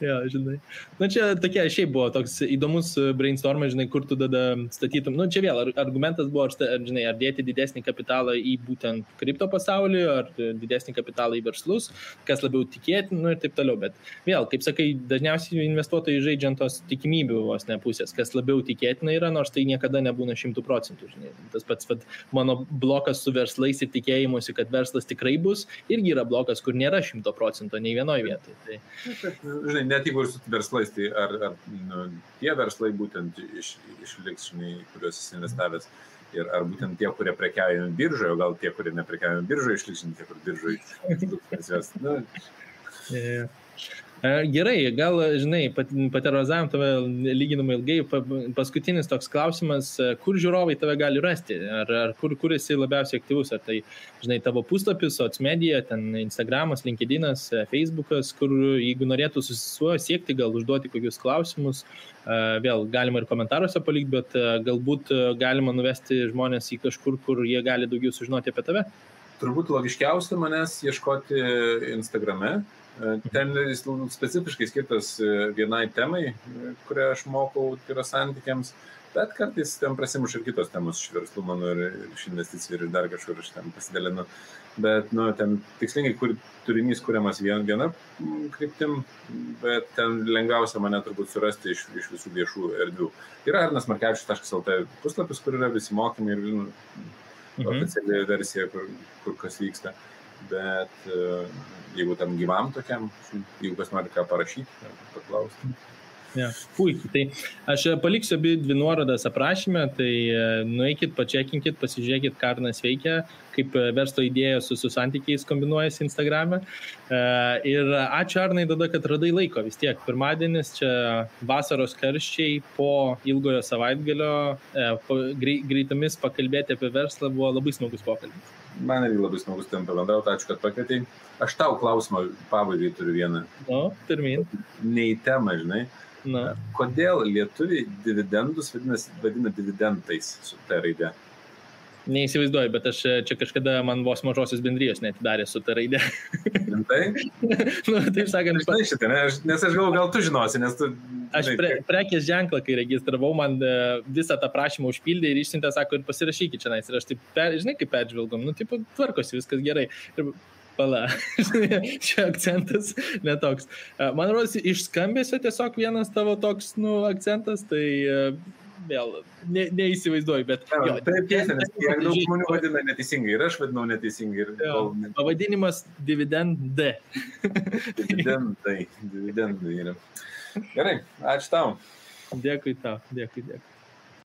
Jo, žinai. Na čia tokia, šiaip buvo toks įdomus brainstormas, žinai, kur tu tada statytum. Nu, čia vėl argumentas buvo, žinai, ar dėti didesnį kapitalą į būtent kripto pasaulį, ar didesnį kapitalą į verslus, kas labiau tikėtina, nu ir taip toliau. Bet vėl, kaip sakai, dažniausiai investuotojai žaidžiant tos tikimybių vos ne pusės, kas labiau tikėtina yra, nors tai niekada nebūna 100%. Žinai. Tas pats mano blokas su verslais ir tikėjimusi, kad verslas tikrai bus, irgi yra blokas, kur nėra 100% nei vienoje vietoje. Tai...
Žinai, net jeigu ir su verslais, tai ar tie verslai būtent išliks, žinai, kuriuos esi investavęs, ir ar būtent tie, kurie prekiauja biržoje, o gal tie, kurie neprekiauja biržoje, išliks, žinai, tie, kur biržoje.
Gerai, gal, žinai, paterorizavom tave lyginamai ilgai. Paskutinis toks klausimas, kur žiūrovai tave gali rasti? Ar kur esi labiausiai aktyvus? Ar tai, žinai, tavo puslapis, socmedia, ten Instagramas, LinkedInas, Facebookas, kur jeigu norėtų susisiekti, gal užduoti kokius klausimus, vėl galima ir komentaruose palikti, bet galbūt galima nuvesti žmonės į kažkur, kur jie gali daugiau sužinoti apie tave?
Turbūt logiškiausia manęs ieškoti Instagrame. Ten jis specifiškai skirtas vienai temai, kurią aš mokau, tai yra santykiams, bet kartais ten prasimuša ir kitos temos iš verslų mano ir iš investicijų ir dar kažkur aš ten pasidalinu. Bet ten tikslingai turinys kuriamas viena kryptim, bet ten lengviausia mane turbūt surasti iš visų viešų erdvių. Yra arnasmarkevičius.lt puslapis, kur yra visi mokymai ir oficiali versija, kur kas vyksta. Bet jeigu tam gyvam tokiam, jeigu kas nori ką parašyti, paklausti.
Ja, puikiai. Tai aš paliksiu abi dvi nuorodas aprašyme, tai nueikit, pačekinkit, pasižiūrėkit, ką Arnas veikia, kaip verslo idėja su santykiais kombinuojasi Instagrame. Ir ačiū Arnai tada, kad radai laiko vis tiek. Pirmadienis čia vasaros karščiai po ilgojo savaitgalio, greitomis pakalbėti apie verslą buvo labai smagus pokalbis.
Man irgi labai smagus ten pabendrauti, ačiū, kad pakvietei. Aš tau klausimą pabaigai turiu vieną.
Pirmin.
Ne į temą, žinai. Kodėl lietuviai dividendus vadina dividendais su ta raide?
Neįsivaizduoju, bet aš čia kažkada man vos mažosios bendrijos neatidarė su ta raide.
Tai?
Taip sakant.
Žinai šitą, nes aš galvoju, gal tu žinosi, nes tu...
Aš prekės ženklą, kai registravau, man visą tą prašymą užpildė ir išsiuntė, sako, ir pasirašykit čia. Ir aš taip, žinai, kaip peržvelgom, tvarkosi, viskas gerai. Ir pala, čia akcentas netoks. Man rodos, iš skambesio tiesiog vienas tavo toks, akcentas, tai vėl neįsivaizduoju, bet...
Taip, tiesa, nes kiek daug žmonių vadina neteisingai ir aš vadinau neteisingai.
Pavadinimas dividendai.
Dividendai yra. Gerai, ačiū tau.
Dėkui tau, dėkui.